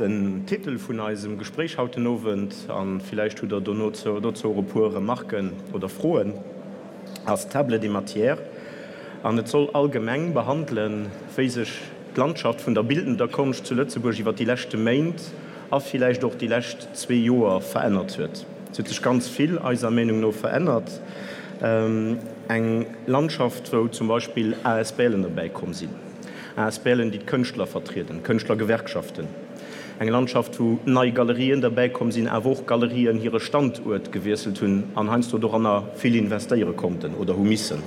Den Titel vun eisem Gespréich haut den Owend, a villäicht hutt Der dono dozou och e puer Remarken oder Froen, ass Table des matières. An et soll allgemeng behandelen, wéi sech d'Landschaft vun der bildender Konscht zu Lëtzebuerg iwwer déi leschte Méint a villäicht och déi lescht zwee Joer verännert huet. Et huet sech ganz vill, eiser Meenung no, verännert. Eng Landschaft, wou zum Beispill ASBLen derbäi komm sinn, ASBLen, déi d'Kënschtler vertrieden, Kënschtlergewerkschaften. Eng Landschaft, wou nei Galerien derbäi komm sinn, awer och Galerien hire Standuert gewiesselt hunn an heiansdo doranner vill investéiere konnten oder hu missen.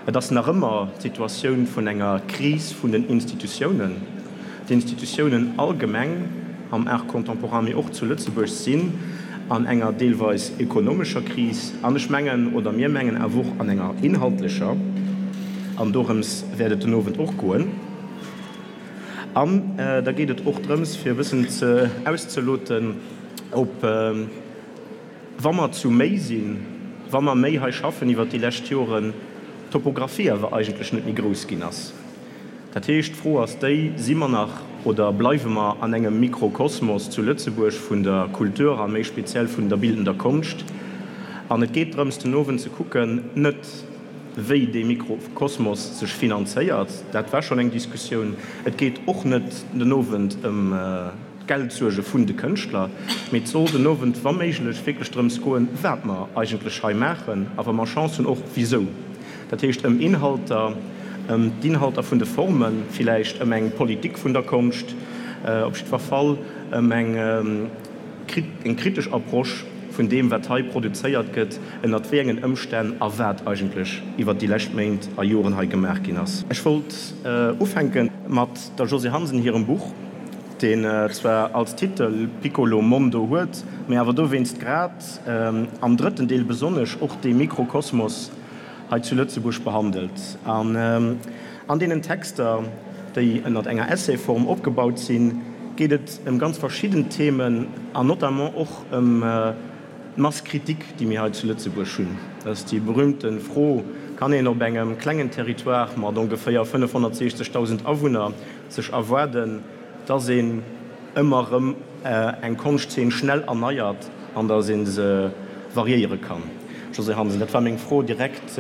Et ass nach ëmmer d'Situatioun vun enger Kris vun den Institutiounen. D'Institutiounen allgemeng am Art contemporain, mee och zu Lëtzebuerg sinn an enger deelweis ekonomescher Kris an ech mengen, oder mir mengen awer och an enger inhaltlecher. An dorëms wäert et den Owend och goen. An da geet et och drëms, fir e bëssen ze auszeloten, ob, Wa mer zu méi sinn, wa mer méi hei schaffen iwwert déi lescht Joren, d'Topographie awer eigentlech net méi grouss ginn ass. Dat heescht, d'Fro ass déi, Si mer nach oder bleiwe mer an engem Mikrokosmos zu Lëtzebuerg vun der Kultur a méi speziell vun der bildender Konscht? An et geet drëms, den Owend ze kucken, net wéi dee Mikrokosmos sech finanzéiert, dat war schonn eng Diskussioun, et geet och net den Owend ëm, d'Geldsuerge vun de Kënschtler, mee et soll den Owend wa méiglech wierklech drëms goen, wat mer eigentlech hei maachen a wa mer Chance hunn och wisou. Dat heescht ëm Inhalter, ëm d'Inhalter vun de Formen, villäicht ëm eng Politik vun der Konscht, op jiddwer Fall ëm eng eng kritesch Approche vun deem, wat hei produzéiert gëtt, ënnert wéi engen Ëmstänn a wat eigentlech iwwert déi lescht Méint a Joren hei gemaach ginn ass. Ech wollt ufänke mat der Josée Hansen hirem Buch. deen zwar als Titel Piccolo Mondo huet, mee awer dowéinst grad am drëtten Deel besonnesch och dee Mikrokosmos hei zu Lëtzebuerg behandelt. An an deenen Texter, déi ënnert enger Essayform opgebaut sinn, geet et ëm ganz verschidden Themen an notamment och ëm d'Masse critique, déi mir hei zu Lëtzebuerg hunn. Dat ass déi berühmte Fro, Kann een op engem klengen Territoire mat ongeféier 560.000 Awunner sech erwaarden, dass een ëmmer erëm eng Konschtzeen schnell erneiert an dass ee se variéiere kann. Josée Hansen, dat war meng Fro direkt,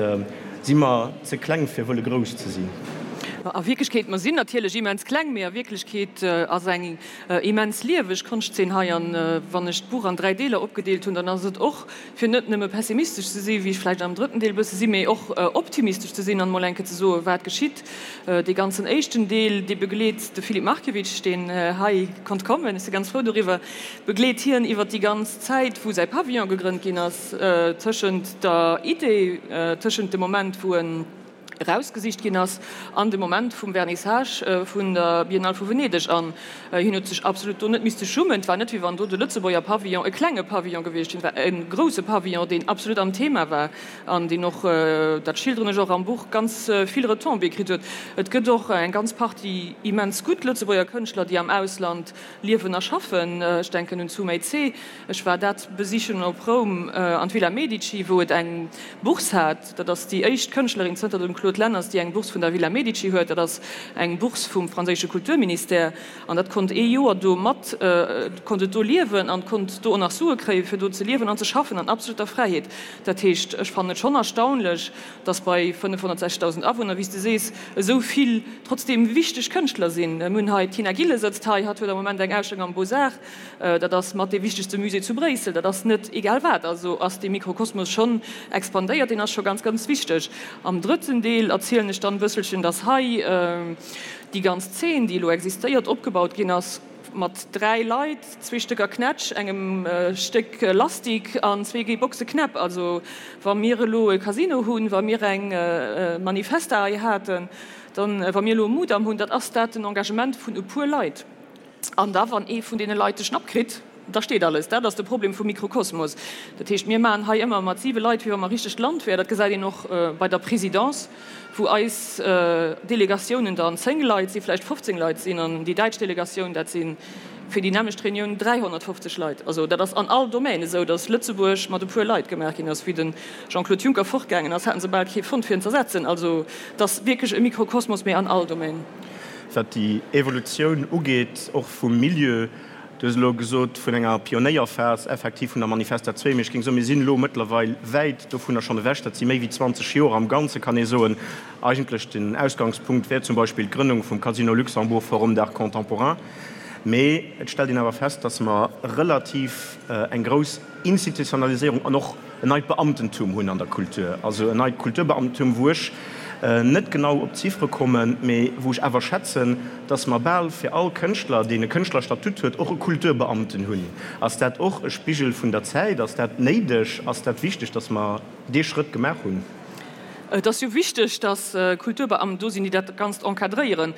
Si mer ze kleng fir wëlle grouss ze sinn? A Wierklechkeet, mer sinn natierlech immens kleng, mee a Wierklechkeet ass eng immens lieweg Konschtzeen hei. An wann ech d'Buch an 3 Deeler opgedeelt hunn, dann ass et och fir net nëmme pessimistesch ze sinn, wéi ech vläicht am drëtten Deel e bësse sinn, mee och optimistesch ze sinn an emol eng Kéier ze soen, wat geschitt. Dee ganzen éischten Deel, dee begleet de Filip Markiewicz, deen hei konnt kommen, ech si ganz frou doriwwer, begleet hien iwwer déi ganz Zäit, wou säi Pavillon gegrënnt ginn ass, tëschent der Idee, tëschent dem Moment, wou en erausgesicht ginn ass an de Moment vum Vernissage vun der Biennale vu Venedeg. An hien huet sech absolut do net misste schummen. Et war net, wéi wann do de Lëtzebuerger Pavillon e klenge Pavillon gewiescht wier. Et war e grousse Pavillon, deen absolut am Thema war an deen och, dat schilderen ech och am Buch, ganz vill Retombées kritt huet. Et gëtt och eng ganz Partie immens gutt Lëtzebuerger Kënschtler, déi am Ausland liewen a schaffen. Ech denken un d'Sumay Tse. Ech war dat besichen op Roum an d'Villa Medici, wou et eng Bourse hat. Dat ass déi éischt Kënschtlerin zënter dem Claude Lenners, déi eng Bourse vun der Villa Medici huet. Dat ass eng Bourse vum franséische Kulturministère. An dat konnt ee Joer do mat, konnt et do liewen an konnt do och nach Sue kréien, fir do ze liewen an ze schaffen an absoluter Fräiheet. Dat heescht, ech fannen et schonn erstaunlech, dass bei 560.000 Awunner, wéi s de sees, esou vill trotzdeem wichteg Kënschtler sinn. Mir hunn hei, d'Tina Gillen sëtzt hei, hatt huet am Moment eng Ausstellung am Beaux-Arts. Dat ass mat dee wichtegste Musée zu Bréissel. Dat ass net egal wat. Also ass dee Mikrokosmos schonn expandéiert, deen ass scho ganz, ganz wichteg. Am drëtten Deel erzielen ech dann e bësselchen, dass hei déi ganz Zeen, déi elo existéiert, opgebaut ginn ass mat 3 Leit, zwee Stécker Knätsch, engem Stéck Lastik an zwee Boxe Knäpp. Also wa mir elo e Casino hunn, wa mir eng Manifesta hei haten, dann, wa mir elo e Mudam hunn, dat ass dat den Engagement vun e puer Leit. An da wann ee vun deene Leit de Schnapp kritt, da steet alles. Dat ass de Problem vum Mikrokosmos. Dat heescht, mir maachen hei ëmmer mat siwe Leit, wéi wa mer richtegt Land wär. Dat gesäit een och bei der Présidence, wou eis Delegatiounen dann 10 Leit sinn, vläicht 15 Leit sinn, an déi däitsch Delegatioun, dat si fir déi nämmlecht Reunioun 350 Leit. Also dat ass an all Domaine esou, datt Lëtzebuerg mat e puer Leit gemaach ginn ass. Wéi de Jean-Claude Juncker fortgaangen ass, haten se bal kee fonnt fir en z'ersetzen. Also et ass wierklech e Mikrokosmos, mee an all Domaine. wat déi Evolutioun ugeet, och vum Milieu. Du hues elo gesot vun enger Pionéierphas effektiv vun der Manifesta 2, mee ech géing soen, mir sinn elo mëttlerweil wäit dovunner schonn ewech. Dat si méi wéi 20 Joer am Ganze kann ee soen. Eigentlech den Ausgangspunkt wär zum Beispill d'Grënnung vum Casino Luxembourg Forum d'Art Contemporain. Mee et stellt een awer fest, datt mer relativ eng grouss Institutionaliséierung an och en neit Beamtentum hunn an der Kultur, also en neit Kulturbeamtentum, wou ech net genau op d'Ziffere kommen, mee wou ech awer schätzen, dass mer bal fir all Kënschtler, deen e Kënschtlerstatut huet, och e Kulturbeamten hunn. Ass dat och e Spigel vun der Zäit? Ass dat néideg? Ass dat wichteg, dass mer dee Schrëtt gemaach hunn? Et ass jo wichteg, dass Kulturbeamten do sinn, déi dat Ganzt encadréieren.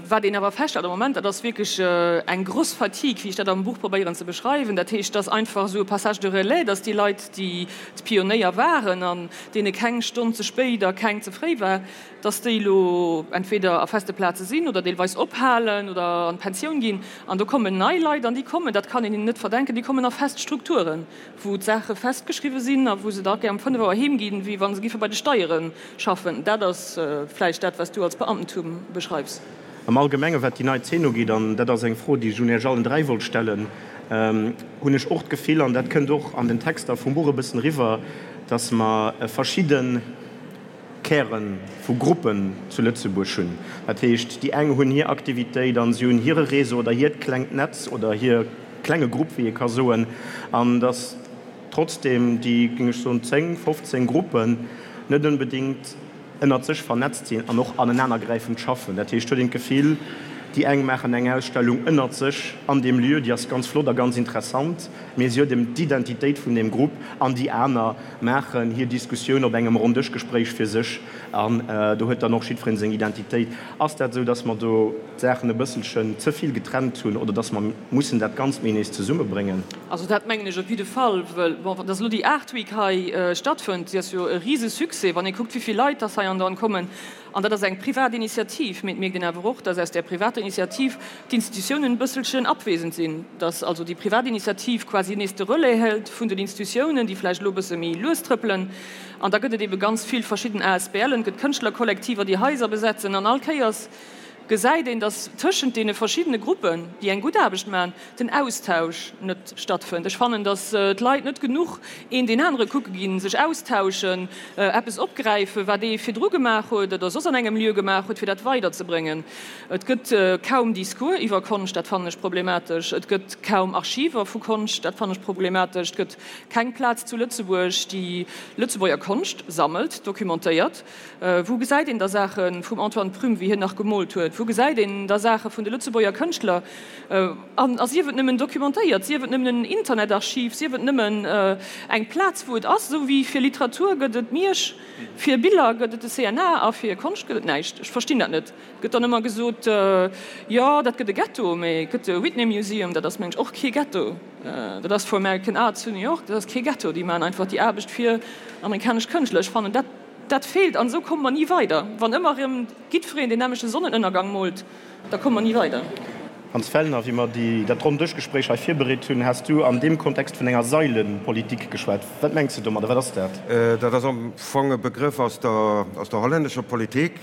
Wat een awer feststellt am Moment, dat ass wierklech eng gross Fatigue, wéi ech dat am Buch probéieren ze beschreiwen. Dat heescht, dass einfach esou e Passage de relais, dass déi Leit, déi d'Pionéier waren an deene keng Stonn ze spéit a keng ze fréi war, dass déi elo entweder a feste Plaze sinn oder deelweis ophalen oder an d'Pensioun ginn. An do kommen nei Leit an déi kommen, dat kann een hinnen net verdenken, déi kommen a fest Strukturen. wou d'Saache festgeschriwwe sinn a wou se da gär um 5 Auer heem ginn, wéi wa se giffe bei de Steiere schaffen. Dat ass vläicht dat, wat s du als Beamtentum beschreifs. Am Allgemenge wat déi nei Zeen ugeet, an dat ass eng Fro, déi ech un Iech allen 3 wollt stellen, hunn ech och d'Gefill, an dat kënnt och an den Texter vum Buch e bëssen eriwwer, dass mer verschidde Käre vu Gruppen zu Lëtzebuerg hunn. Dat heescht, déi eng hunn hir Aktivitéit an si hunn hire Réseau oder hiert klengt Netz oder hir klenge Grupp, wéi ee ka soen, an datt trotzdeem déi, géing ech soen, 10, 15 Gruppen net onbedéngt ënnert sech vernetzt sinn an och anenanergräifend schaffen. Dat heescht, huet een d'Gefill, déi eng maachen eng Ausstellung ënnert sech an deem Lieu, déi ass ganz flott a ganz interessant, mee si huet ëm d'Identitéit vun deem Grupp, an déi aner maachen hir Diskussioun op engem Ronndëschgespréich fir sech an do huet dann och jiddwereen seng Identitéit. Ass dat esou, dass mer do d'Saachen e bësselchen ze vill getrennt hunn oder dass mer mussen dat Ganzt méi nees zesummebréngen? Also dat mengen ech op jidde Fall, wëll, bon, dass elo déi Art Week hei stattfënnt, déi ass jo e Risesuccès, wann ee kuckt, wéi vill Leit dass hei andauernd kommen. An dat ass eng privat Initiativ, mee et mierkt een awer och, dass aus där privater Initiativ d'Institutiounen e bësselchen abwesend sinn, dass also déi privat Initiativ quasi nees de Relais hält vun den Institutiounen, déi vläicht elo e bësse méi lues trëppelen. An da gëtt et ebe ganz vill verschidden ASBLen, et gëtt Kënschtlerkollektiver, déi Haiser besetzen. An all Kéiers gesäit een, dass tëschent deene verschiddene Gruppen, déi eng gutt Aarbecht maachen, den Austausch net stattfënnt. Ech fannen, datt d'Leit net genuch een deen anere kucke ginn, sech austauschen, eppes opgräifen, wat ee virdru gemaach huet oder soss an engem Lieu gemaach huet, fir dat weiderzebréngen. Et gëtt kaum Discours iwwer Konscht, dat fannen ech problematesch. Et gëtt kaum Archiver vu Konscht, dat fannen ech problematesch. Et gëtt keng Plaz zu Lëtzebuerg, déi Lëtzebuerger Konscht sammelt, documentéiert. Wou gesäit een da Saache vum Antoine Prüm, wéi hien nach gemoolt huet? Wou gesäit een da Saache vun de Lëtzebuerger Kënschtler? An a sief et nëmmen documentéiert, sief et nëmmen en Internetarchiv, sief et nëmmen eng Plaz, wou et ass. Esou wéi fir Literatur gëtt et Miersch, fir Biller gëtt et de CNA a fir Konscht gëtt et näischt. Ech verstinn dat net. Et gëtt dann ëmmer gesot, jo, dat gëtt e Ghetto, mee et gëtt de Whitney Museum, dat ass, mengen ech, och kee Ghetto. Dat ass for American Art zu New York, dat ass kee Ghetto. Déi maachen einfach déi Aarbecht fir amerikanesch Kënschtler. Ech fannen, dat, dat feelt an esou komme mer ni weider. Wann ëmmer erëm jiddwereen deen nämmlechte Sonnenënnergang moolt, Da komme mer ni weider. Hans Fellner, Wéi mer déi, dat Ronndëschgespréich hei virbereet hunn, has du an deem Kontext vun enger Sailenpolitik geschwat. Wat mengs de domadder? Wat ass dat? Dat ass am Fong e Begrëff aus der, aus der hollännescher Politik,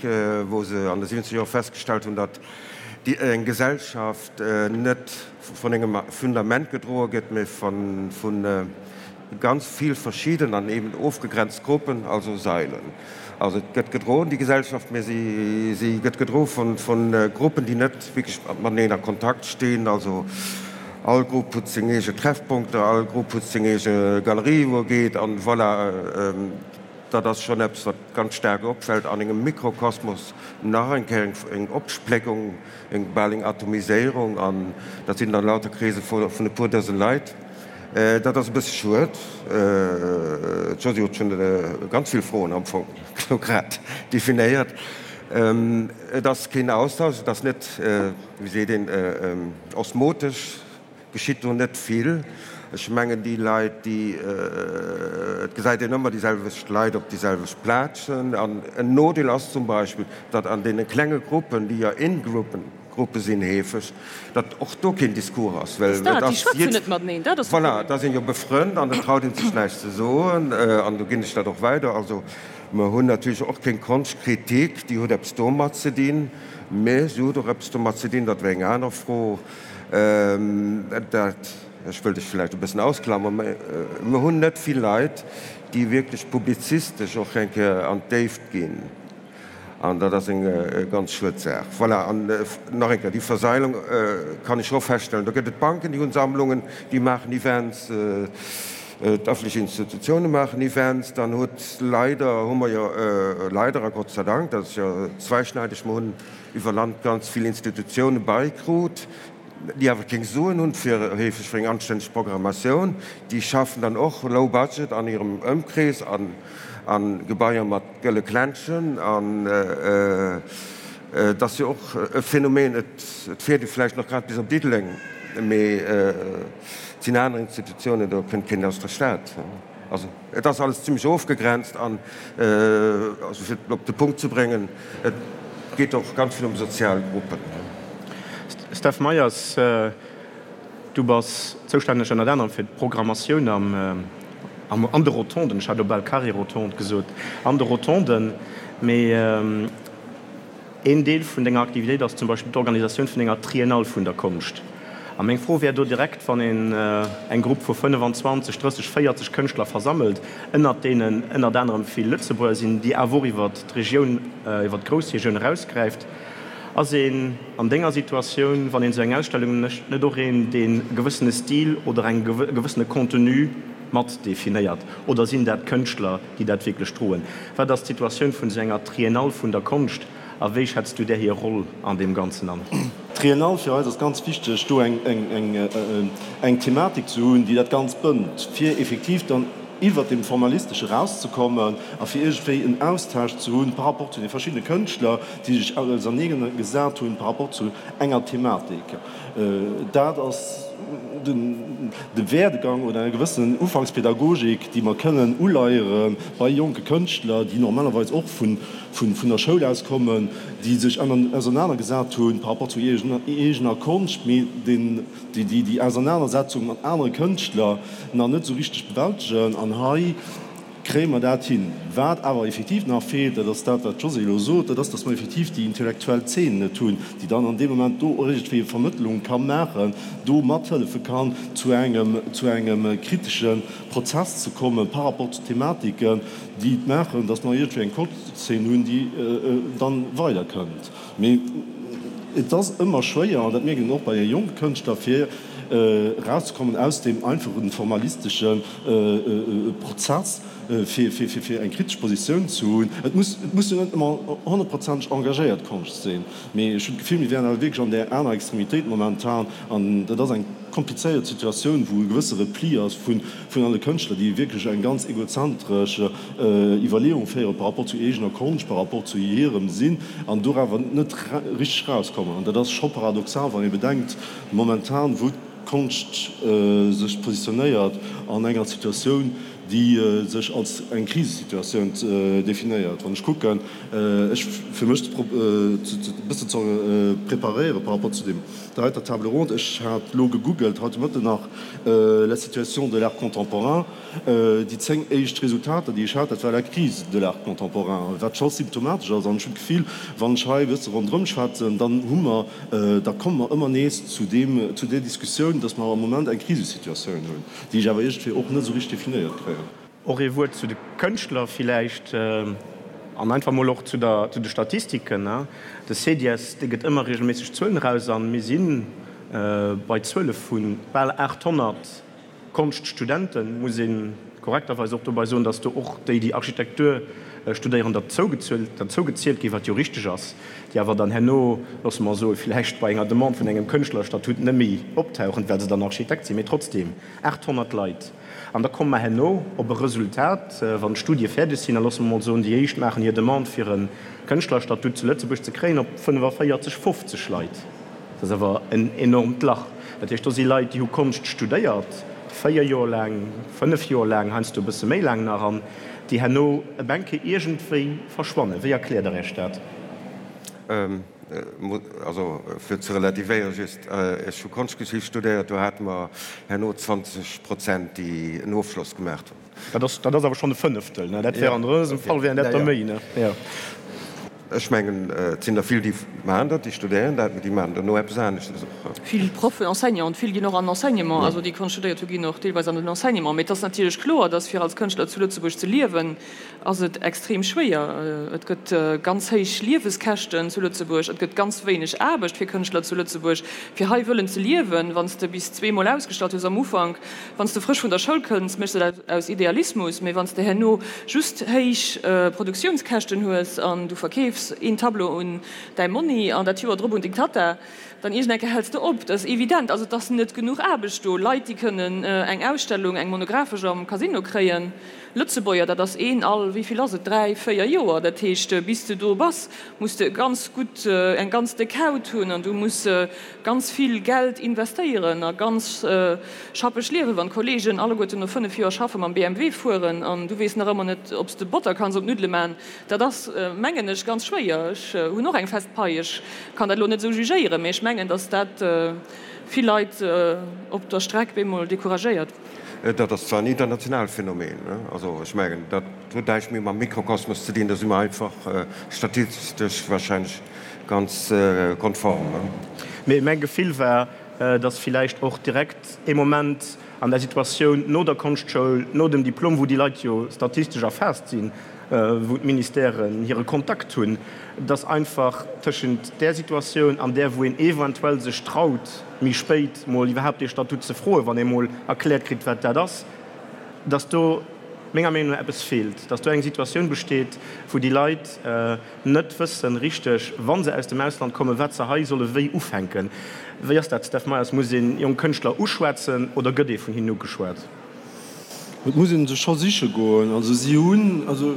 wou se an de siwwenzeger Joer festgestallt hunn, datt déi, eng Gesellschaft net vun engem Fundament gedroe gëtt, mee von, vun ganz vill verschidden an eben ofgegrenzt Gruppen, also Sailen. Also et gëtt gedroen, déi Gesellschaft, mä si, si gëtt gedroe vun, vun Gruppen, déi net wierklech mateneen a Kontakt stinn. Also all Grupp huet seng eege Treffpunkter, all Grupp huet seng eege Galerie, wou e geet an voilà. Dat ass schonn eppes, wat ganz staark opfält an engem Mikrokosmos, nach eng Kéier eng Opspléckung, eng bal eng Atomiséierung an dat sinn dann lauter Kreese vun e puer Dësen Leit. Dat ass e bësse schued. D'Josy huet schonn ganz vill Froen am Fong elo grad definéiert. Et ass keen Austausch, et ass net, wéi seet een, osmotesch geschitt do net vill. Ech mengen déi Leit, déi, et gesäit een ëmmer déi selwecht Leit op déi selwecht Plazen. An en Nodeel ass zum Beispill, datt an deene klenge Gruppen, déi jo in-Gruppen, Gruppe sinn heefeg, datt och do keen Discours ass, well et ass jidd, voilà, et ass een jo befrënnt an et traut een sech näischt ze soen an do ginn ech dat och weider. Also. Mer hunn natierlech och keng Konschtkritik, déi huet eppes domat ze dinn, mä se huet och eppes domat ze dinn, dat wär eng aner Fro, dat, ech wëll dech vläicht e bëssen ausklammern, mä mer hunn net vill Leit, déi wierklech publizistesch och eng Kéier an d'Déift ginn. An dat ass eng ganz schued Saach. Voilà, an nach eng Kéier, déi Verseilung kann ech och feststellen. Do gëtt et Banken, déi hunn Sammlungen, déi maachen Events, d'öffentlech Institutioune maachen Events. Dann huet leider, hu mer jo leider a Gott sei Dank, dat ass jo zweischneideg, mer hunn iwwer Land ganz vill Institutioune beikrut, déi awer keng Suen hunn fir heefeg fir eng anstänneg Programmatioun, déi schaffen dann och low budget an hirem Ëmkrees an a Gebaier mat gëlle Kläntschen an et ass jo och e Phänomen, et fiert ee vläicht nach grad bis op Diddeleng, mee et sinn aner Institutiounen, do kënnt keen aus der Stad. Also et ass alles zimlech ofgegrenzt an, also fir et op de Punkt ze bréngen, et geet och ganz vill ëm sozial Gruppen. Steph Meyers, du bass zoustänneg ënnert anerem fir d'Programmatioun am, an de Rotonden, ech hat elo bal Carré Rotonde gesot, an de Rotonden, mee Een Deel vun denger Aktivitéit ass zum Beispill d'Organisatioun vun enger Triennale vun der Konscht. A meng Fro wär do direkt, wann een eng Grupp vu 25, 30, 40 Kënschtler versammelt, ënnert deenen ënnert anerem vill Lëtzebuerger sinn, déi awer och iwwert d'Regioun, iwwert d'Groussregioun erausgräift, ass een an denger Situatioun, wann een esou eng Ausstellung mécht, net och een, deen e gewëssene Stil oder eng e gewëssene Contenu mat definéiert? Oder sinn dat Kënschtler, déi dat wierklech droen. Wat ass d'Situatioun vun esou enger Triennale vun der Konscht a wéi schätz du där hir Roll an deem Ganzen an? D'Triennale fir eis ass ganz wichteg, do eng Thematik ze hunn, déi dat Ganzt bënnt, fir effektiv dann iwwert deem Formalistesche erauszekommen a fir iergendwéi en Austausch ze hunn par rapport zu de verschiddene Kënschtler, déi sech ausernee gesat hunn par rapport zu enger Thematik. Dat ass de Werdegang oder eng gewëssen Ufankspädagogik, déi mer kënnen uleiere bei jonke Kënschtler, déi normalerweis och vun der Schoul aus kommen, déi sech ausernanergesat hu par rapport zu eegener Konscht, mee déi déi Ausernanersetzung mat anere Kënschtler nach net esou richteg bewältegen. An hei Kréie mer dat hin? Wat awer effektiv nach feelt, dat ass dat, wat d'Josée elo sot, dat ass, dass mer effektiv déi intellektuell Zeen net hunn, déi dann an deem Moment do iergendwéi e Vermëttlung ka maachen, do mathëllefe kann, zu engem, zu engem kritesche Prozess ze komme par rapport zu Thematiken, déi et maachen, dass mer iergendwéi eng Konschtzeen hunn, déi dann weiderkënnt. Mee et ass ëmmer schwéier, an dat mierkt een och bei jonke Kënschtler, fir erauszekommen aus deem einfachen formalistesche Prozess, fir eng kritesch Positioun ze hunn. Et muss, et muss jo net ëmmer honnertprozenteg engagéiert Konscht sinn, mee ech hunn d'Gefill, mir wären awer wierklech an där aner Extremitéit momentan, an dat ass eng komplizéiert Situatioun, wou e gewësse Repli ass vun alle Kënschtler, déi wierklech eng ganz egozentresch Iwwerleeung féiere par rapport zu eegener Konscht, par rapport zu hirem Sinn, an do awer net richteg erauskommen. An dat ass scho paradoxal, wann ee bedenkt momentan, wou d'Konscht sech positionéiert an enger Situatioun, déi sech als eng Krisesituatioun definéiert. Wann ech kucken, ech fir mech e bëssen ze preparéiere par rapport zu deem, der heiter Table ronde, ech hat elo gegoogelt haut de Mëtten nach la situation de l'art contemporain, Déi 10 éischt Resultater, déi ech hat, dat war la crise de l'art contemporain, wat scho symptomatesch ass. An ech hunn d'Gefill, wann ech hei e bësse ronderëm schwätzen, dann hu mer, da komme mer ëmmer nees zu deem, zu där Diskussioun, dass mer am Moment eng Krisesituatioun hunn, déi ech awer iergendwéi och net esou richteg definéiert kréien. Och ee Wuert zu de Kënschtler villäicht an einfach mol och zu der, zu de Statistiken. De CEDIES, dee gëtt ëmmer regelméisseg Zuelen eraus an mir si bei Zuele vu bal 800 Konschtstudenten, muss ee korrekterweis och dobei soen, dass do och déi, déi Architektur studéieren, derzougezielt ginn, wat jo richteg ass, déi awer dann herno, loosse mer soen, villäicht bei enger Demande vun engem Kënschtlerstatut net méi optauchen, well se dann Architekt sinn. Mee trotzdeem, 800 Leit. An da komme mer herno op e Resultat, wann d'Studie fäerdeg sinn, a loosse mer mol soen, déi éischt maachen hir Demande, fir e Kënschtlerstatut zu Lëtzebuerg ze kréien, op 45, 50 Leit. Dat ass awer en enormt Lach. Dat heescht, do si Leit, déi hu Konscht studéiert, 4 Joer laang, 5 Joer laang, heiansdo e bësse méi laang nach, an déi herno e Bänke iergendwéi verschwannen. Wéi erkläert Der Iech dat? Also, fir ze relativéieren just, Ech hu Konschtgeschicht studéiert, do hate mer herno 20 Prozent, déi en Ofschloss gemaach hunn. Dat ass, dat ass awer schonn e Fënneftel, ne? Dat wär an dësem Fall wären dat der méi, ne? Jo. Ech mengen, et sinn der vill, déi maachen dat, déi studéieren dat, mee déi maachen dono eppes aneschtes och. Vill Proffen, Enseignanten, vill ginn och an den Enseignement, also déi Konscht studéiert hu ginn och deelweis an den Enseignement. Mee et ass natierlech kloer, dass fir als Kënschtler zu Lëtzebuerg ze liewen, ass et extrem schwéier. Et gëtt ganz héich Lieweskäschten zu Lëtzebuerg, et gëtt ganz wéineg Aarbecht fir Kënschtler zu Lëtzebuerg, fir hei wëllen ze liewen. Wann s de bis zweemol ausgestallt hues am Ufank, wann s de frësch vun der Schoul kënns, méchs de dat aus Idealismus, mee wann s de herno just héich Produktiounskäschten hues an du verkeefs een Tableau un däi Monni an dat Joer drop un deng Tatta, dann iergend eng Kéier häls de op. Dat ass evident. Also et ass net genuch Aarbecht do. Leit, déi kënnen eng Ausstellung, eng monographesch am Casino kréien, Lëtzebuerger, dat ass een all, wéi vill ass et, dräi, véier Joer. Dat heescht, bis de do bass, muss de e ganz gutt, eng ganz déck Haut hunn an du muss ganz vill Geld investéieren a ganz schappeg liewen. Wann d'Kollegen alleguerten no 5 Joer schaffe mam BMW fueren an du weess nach ëmmer net, ob s de Botter kanns op d'Nuddele man, dat ass, mengen ech, ganz schwéier. Ech hunn och eng fest Pai, ech kann dat elo net esou jugéieren, mee ech mengen, datt dat vill Leit op der Streck bemol decouragéiert. Dat ass zwar en internationaalt Phänomen, also ech mengen, dat huet näischt méi mam Mikrokosmos ze dinn, do si mer einfach statistesch wahrscheinlech ganz konform. Mee mäi Gefill war, datt villäicht och direkt ee Moment an der Situatioun no der Konschtschoul, no dem Diplom, wou déi Leit jo statistesch erfaasst sinn, wou d'Ministèren hire Kontakt hunn, dass einfach tëschent där Situatioun an där, wou een eventuell sech traut, méi spéit mol iwwerhaapt dee Statut ze froen, wann ee mol erkläert kritt, wat dat ass, dass do menger Meenung no eppes feelt, dass do eng Situatioun besteet, wou déi Leit net wëssen richteg, wa se aus dem Ausland kommen, wat se hei solle wéi ufänken. Wéi ass dat, Steph Meyers? Muss een jonk Kënschtler uschwätzen oder gëtt ee vun hinnen ugeschwat? Et muss ee sech scho siche goen. Also si hunn, also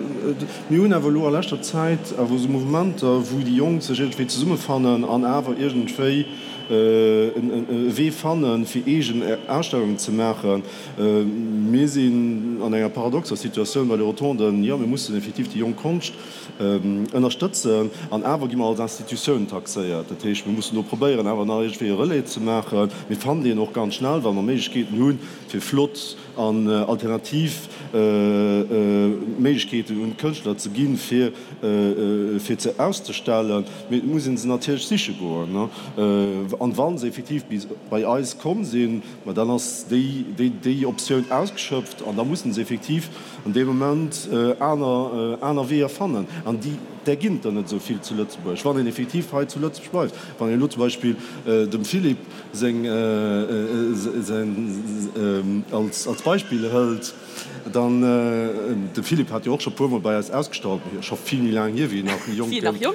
mir hunn awer elo a leschter Zäit awer esou Mouvementer, wou déi Jonk sech iergendwéi zesummefannen an awer iergendwéi e Wee fannen, fir eegen Ausstellungen ze maachen. Mir sinn an enger paradoxer Situatioun bei de Rotonden. Jo, mir mussen effektiv déi jonk Konscht ënnerstëtzen an awer gi mer als Institutioun taxéiert. Dat heescht, mir mussen do probéieren, awer nach iergendwéi e Relais ze maachen. Mir fannen deen och ganz schnell, wa mer Méiglechkeeten hunn, fir flott an alternativ Méiglechkeeten un d'Kënschtler ze ginn, fir fir ze auszestellen. Mee et muss ee se natierlech siche goen. An wa se effektiv bis bei eis komm sinn, ma dann ass déi déi Optioun ausgeschöpft an da mussen se effektiv an deem Moment aner aner Weeër fannen. An déi där ginn et der net esou vill zu Lëtzebuerg, wann een effektiv hei zu Lëtzebuerg bleift. Wann een elo zum Beispill dem Philippe seng als Beispill hëlt, dann, de Philippe hat jo och scho puermol bei eis ausgestallt, scho vill méi laang hier, wéi en nach jonk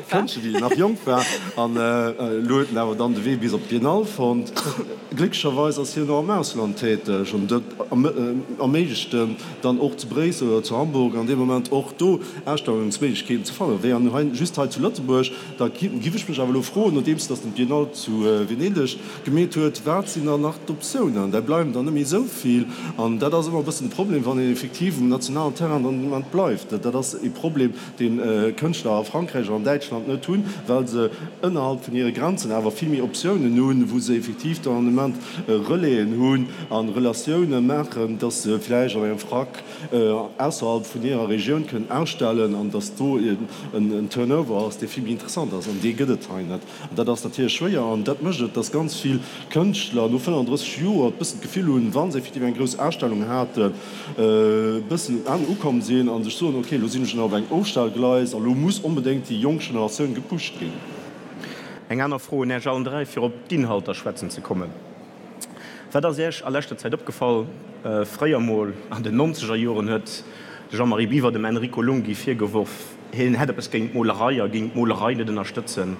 Kënschtler, wéi en nach jonk war, an elo huet en awer dann de Wee bis op d'Biennale fonnt. Glécklecherweis ass hien och am Ausland täteg an dat erméiglecht en dann och zu Bréissel oder zu Hamburg an deem Moment och do Ausstellungsméiglechkeeten ze fannen. Wéi an hei just hei zu Lëtzebuerg. Da giff ech mech awer elo froen, nodeems datt den d'Biennale zu Venedeg gemeet huet, wat sinn dann nach d'Optiounen? Där bleiwen der net méi esou vill. An dat ass ëmmer e bëssen de Problem, wann een effektiv um nationalen Terrain dann den Moment bleift. Dat ass e Problem, dee Kënschtler a Frankräich an an Däitschland net hunn, well se ënnerhalb vun hire Grenzen awer vill méi Optiounen hunn, wou se effektiv dann an dem Moment Relaisen hunn a Relatioune maachen, datt se vläicht an engem Frack ausserhalb vun hirer Regioun kënnen ausstellen an datt do en Turnover ass, dee vill méi interessant ass. An dee gëtt et hei net. An dat ass natierlech schwéier an dat mécht et, datt ganz vill Kënschtler no 35 Joer e bëssen d'Gefill hunn, wa se effektiv eng grouss Ausstellung haten, e bëssen um Enn ukomm sinn a sech soen, ok, elo sinn ech op engem Ofstellgleis a lo muss onbedéngt déi jonk Generatioun gepusht ginn. Eng aner Fro un Äech allen 3, fir op d'Inhalter schwätzen ze kommen. Wat ass Iech a leschter Zäit opgefall? Fréier mol, an den nonzeger Joren, huet de Jean-Marie Biwer dem Enrico Lunghi virgeworf, hien hätt eppes géint d'Molerei a géing d'Molerei net ënnerstëtzen.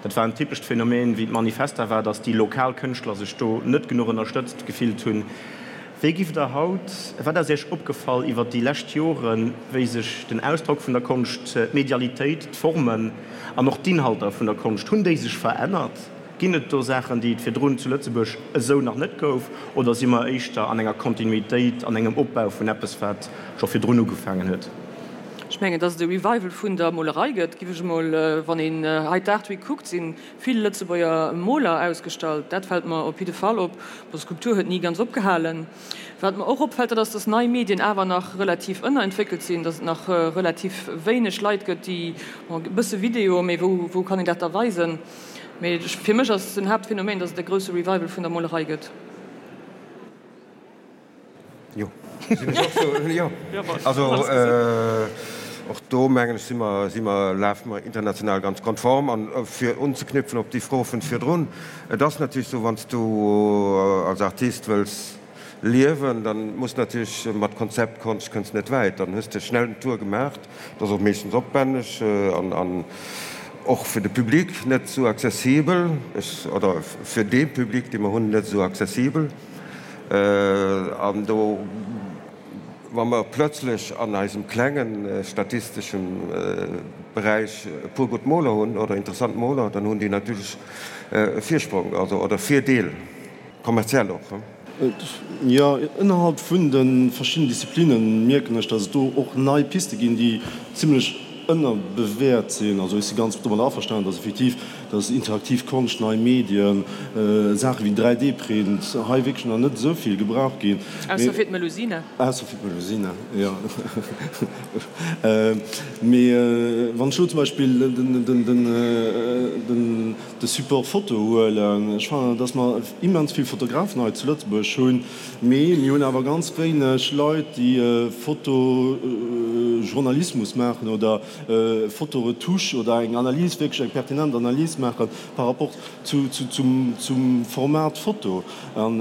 Dat war en typescht Phänomen, wéi d'Manifesta war, datt déi lokal Kënschtler sech do net genuch ënnerstëtzt gefillt hunn. Wéi giff Der haut, wat ass Iech opgefall iwwer déi lescht Joren, wéi sech den Ausdrock vun der Konscht, d'Medialitéit, d'Formen an och d'Inhalter vun der Konscht, hunn déi sech verännert? Ginn et do Saachen, déi et virdrun zu Lëtzebuerg esou nach net gouf, oder si mer éischter an enger Kontinuitéit, an engem Opbau vun eppes, wat scho virdrun ugefaangen huet? Ech mengen, dass et e Revival vun der Molerei gëtt, giff ech emol, wann een hei d'Art Week kuckt, si vill Lëtzebuerger Moler ausgestallt. Dat fält mer op jidde Fall op. Bon, Skulptur huet ni ganz opgehalen. Wat mer och opfält, dat ass, dass nei Medien awer nach relativ ënnerentwéckelt sinn, dass et nach relativ wéineg Leit gëtt, déi, bon, e bësse Video, mee wou, wou kann een dat da weisen? Mee fir mech ass den Haaptphänomen, dass et e grousse Revival vun der Molerei gëtt. Jo, sinn ech och sou, jo. Also och do mengen ech si mer, si mer, lafe mer international ganz konform. An fir unzeknüpfen op déi Fro vun virdrun, et ass natierlech esou, wann s du als Artist wëlls liewen, dann muss natierlech mat Konzeptkonscht kënns net wäit, dann hues de schnell den Tour gemaacht, dat ass och meeschtens opwänneg an an och fir de Public net esou accessibel, oder fir dee Public dee mer hunn net esou accessibel. An do, wa mer plötzlech an eisem klengen statisteschem Beräich e puer gutt Moler hunn oder interessant Moler, dann hunn déi natierlech e Virsprong, also oder Virdeel, kommerziell och. Jo, ënnerhalb vun de verschiddenen Disziplinne mierken ech, datt et do och nei Piste ginn, déi zimlech ënnerbewäert sinn. Also ech si ganz domadder averstanen, datt effektiv dass interaktiv Konscht, nei Medien, Saache wéi 3D-Print hei wierklech nach net esou vill gebraucht ginn. Ausser fir d'Melusina. Ausser fir d'Melusina, jo. Mee wann ech elo zum Beispill de Support Foto huelen, ech fannen, dass mer immens vill Fotografen hei zu Lëtzebuerg hunn, mee mir hunn awer ganz wéineg Leit, déi Fotojournalismus maachen oder Fotoretouche oder eng Analys, wierklech eng pertinent Analys maache par rapport zu, zum, zum Format Foto. An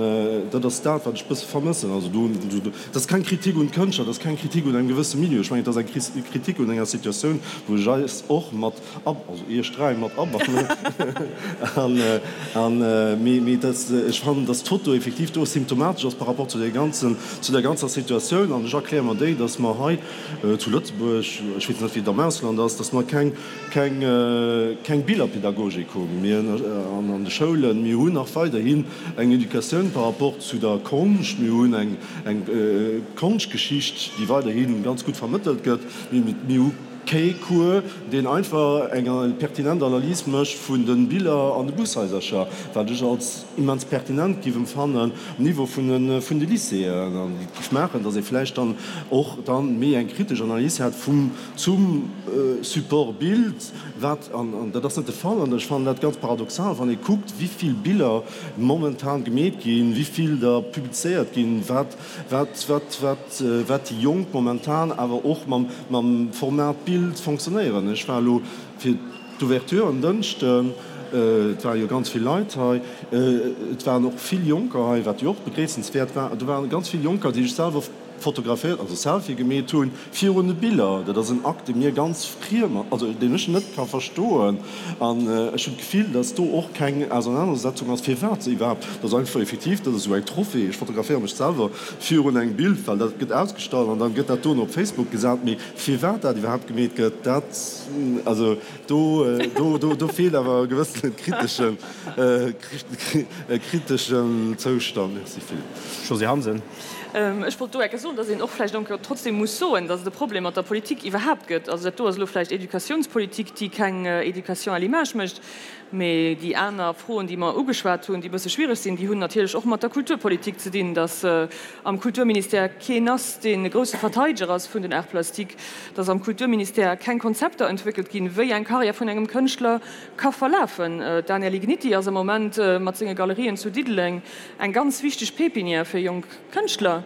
dat ass dat, wat ech e bësse vermëssen. Also do, dat ass keng Kritik un d'Kënschtler, dat ass keng Kritik un engem gewësse Milieu. Ech mengen, et ass eng Kritik un enger Situatioun, wou ech eis och mat ab, also iech dräi mat abannen. An, an, mee, mee dat, ech fannen, dass d'Foto effektiv do symptomatesch ass par rapport zu där ganzen, zu där ganzer Situatioun. An ech erkläre mer déi, dass mer hei, zu Lëtzebuerg, ech weess net wéi et am Ausland ass, datt mer keng, keng, keng Billerpedagogik hunn. Mir an an de Schoulen, mir hunn nach weiderhin eng Educatioun par rapport zu der Konscht, mir hunn eng, eng Konschtgeschicht, déi weiderhi ganz gutt vermëttelt gëtt, mee mir hu kee Cours, deen einfach eng pertinent Analys mécht vun de Biller an de Bushaisercher, wat ech als immens pertinent giff emfannen um Niveau vun de vun de Lycéeën an déi giff maachen, datt ee vläicht dann och dann méi eng kritesch Analys hätt vum zum Support Bild, wat an an dat ass net de Fall an ech fannen dat ganz paradoxal, wann ee kuckt wéi vill Biller momentan gemeet ginn, wéi vill der publizéiert ginn, wat wat wat wat wat déi Jonk momentan awer och mam mam Format Bild fonctionnéieren. Ech war elo fir D'Ouverture en Dënschden, et ware jo ganz vill Leit hei, et waren och vill Jonker hei, wat jo och begréissenswäert war. Do waren ganz vill Jonker, déi sech selwer fotograféiert, also Selfie gemeet hunn virun de Biller. Dat ass en Akt, dee mir ganz friem, also deen ech net ka verstoen. An ech hunn d'Gefill, datt do och keng Ausernanersetzung ass, firwat se iwwerhaapt, dat ass einfach effektiv, dat ass esou eng Trophée, ech fotograféiere mech selwer virun engem Bild, well dat gëtt ausgestallt an dann gëtt dat dono op Facebook gesat. Mee firwat dat iwwerhaapt gemeet gëtt, dat, also do, do, do, do feelt awer e gewëssene kriteschen, e kriteschen Zoustand. Merci Philippe. Josée Hansen. Ech wollt do enke soen, dass een och vläicht enke trotzdem muss soen, dass et e Problem mat der Politik iwwerhaapt gëtt. Also dat do ass elo vläicht Educatiounspolitik, déi keng Éducation à l'image mécht. Mee déi aner Froen, déi mer ugeschwat hunn, déi e bësse schwiereg sinn, déi hunn natierlech och mat der Kulturpolitik ze dinn, dass am Kulturministère keen ass, deen e grousse Verteideger ass vun den Arts plastiques, dass am Kulturministère keng Konzepter entwéckelt ginn, wéi eng Karriär vun engem Kënschtler ka verlafen. D'Ania Ligniti ass am Moment mat senge Galerien zu Diddeleng eng ganz wichteg Pépinière fir jonk Kënschtler.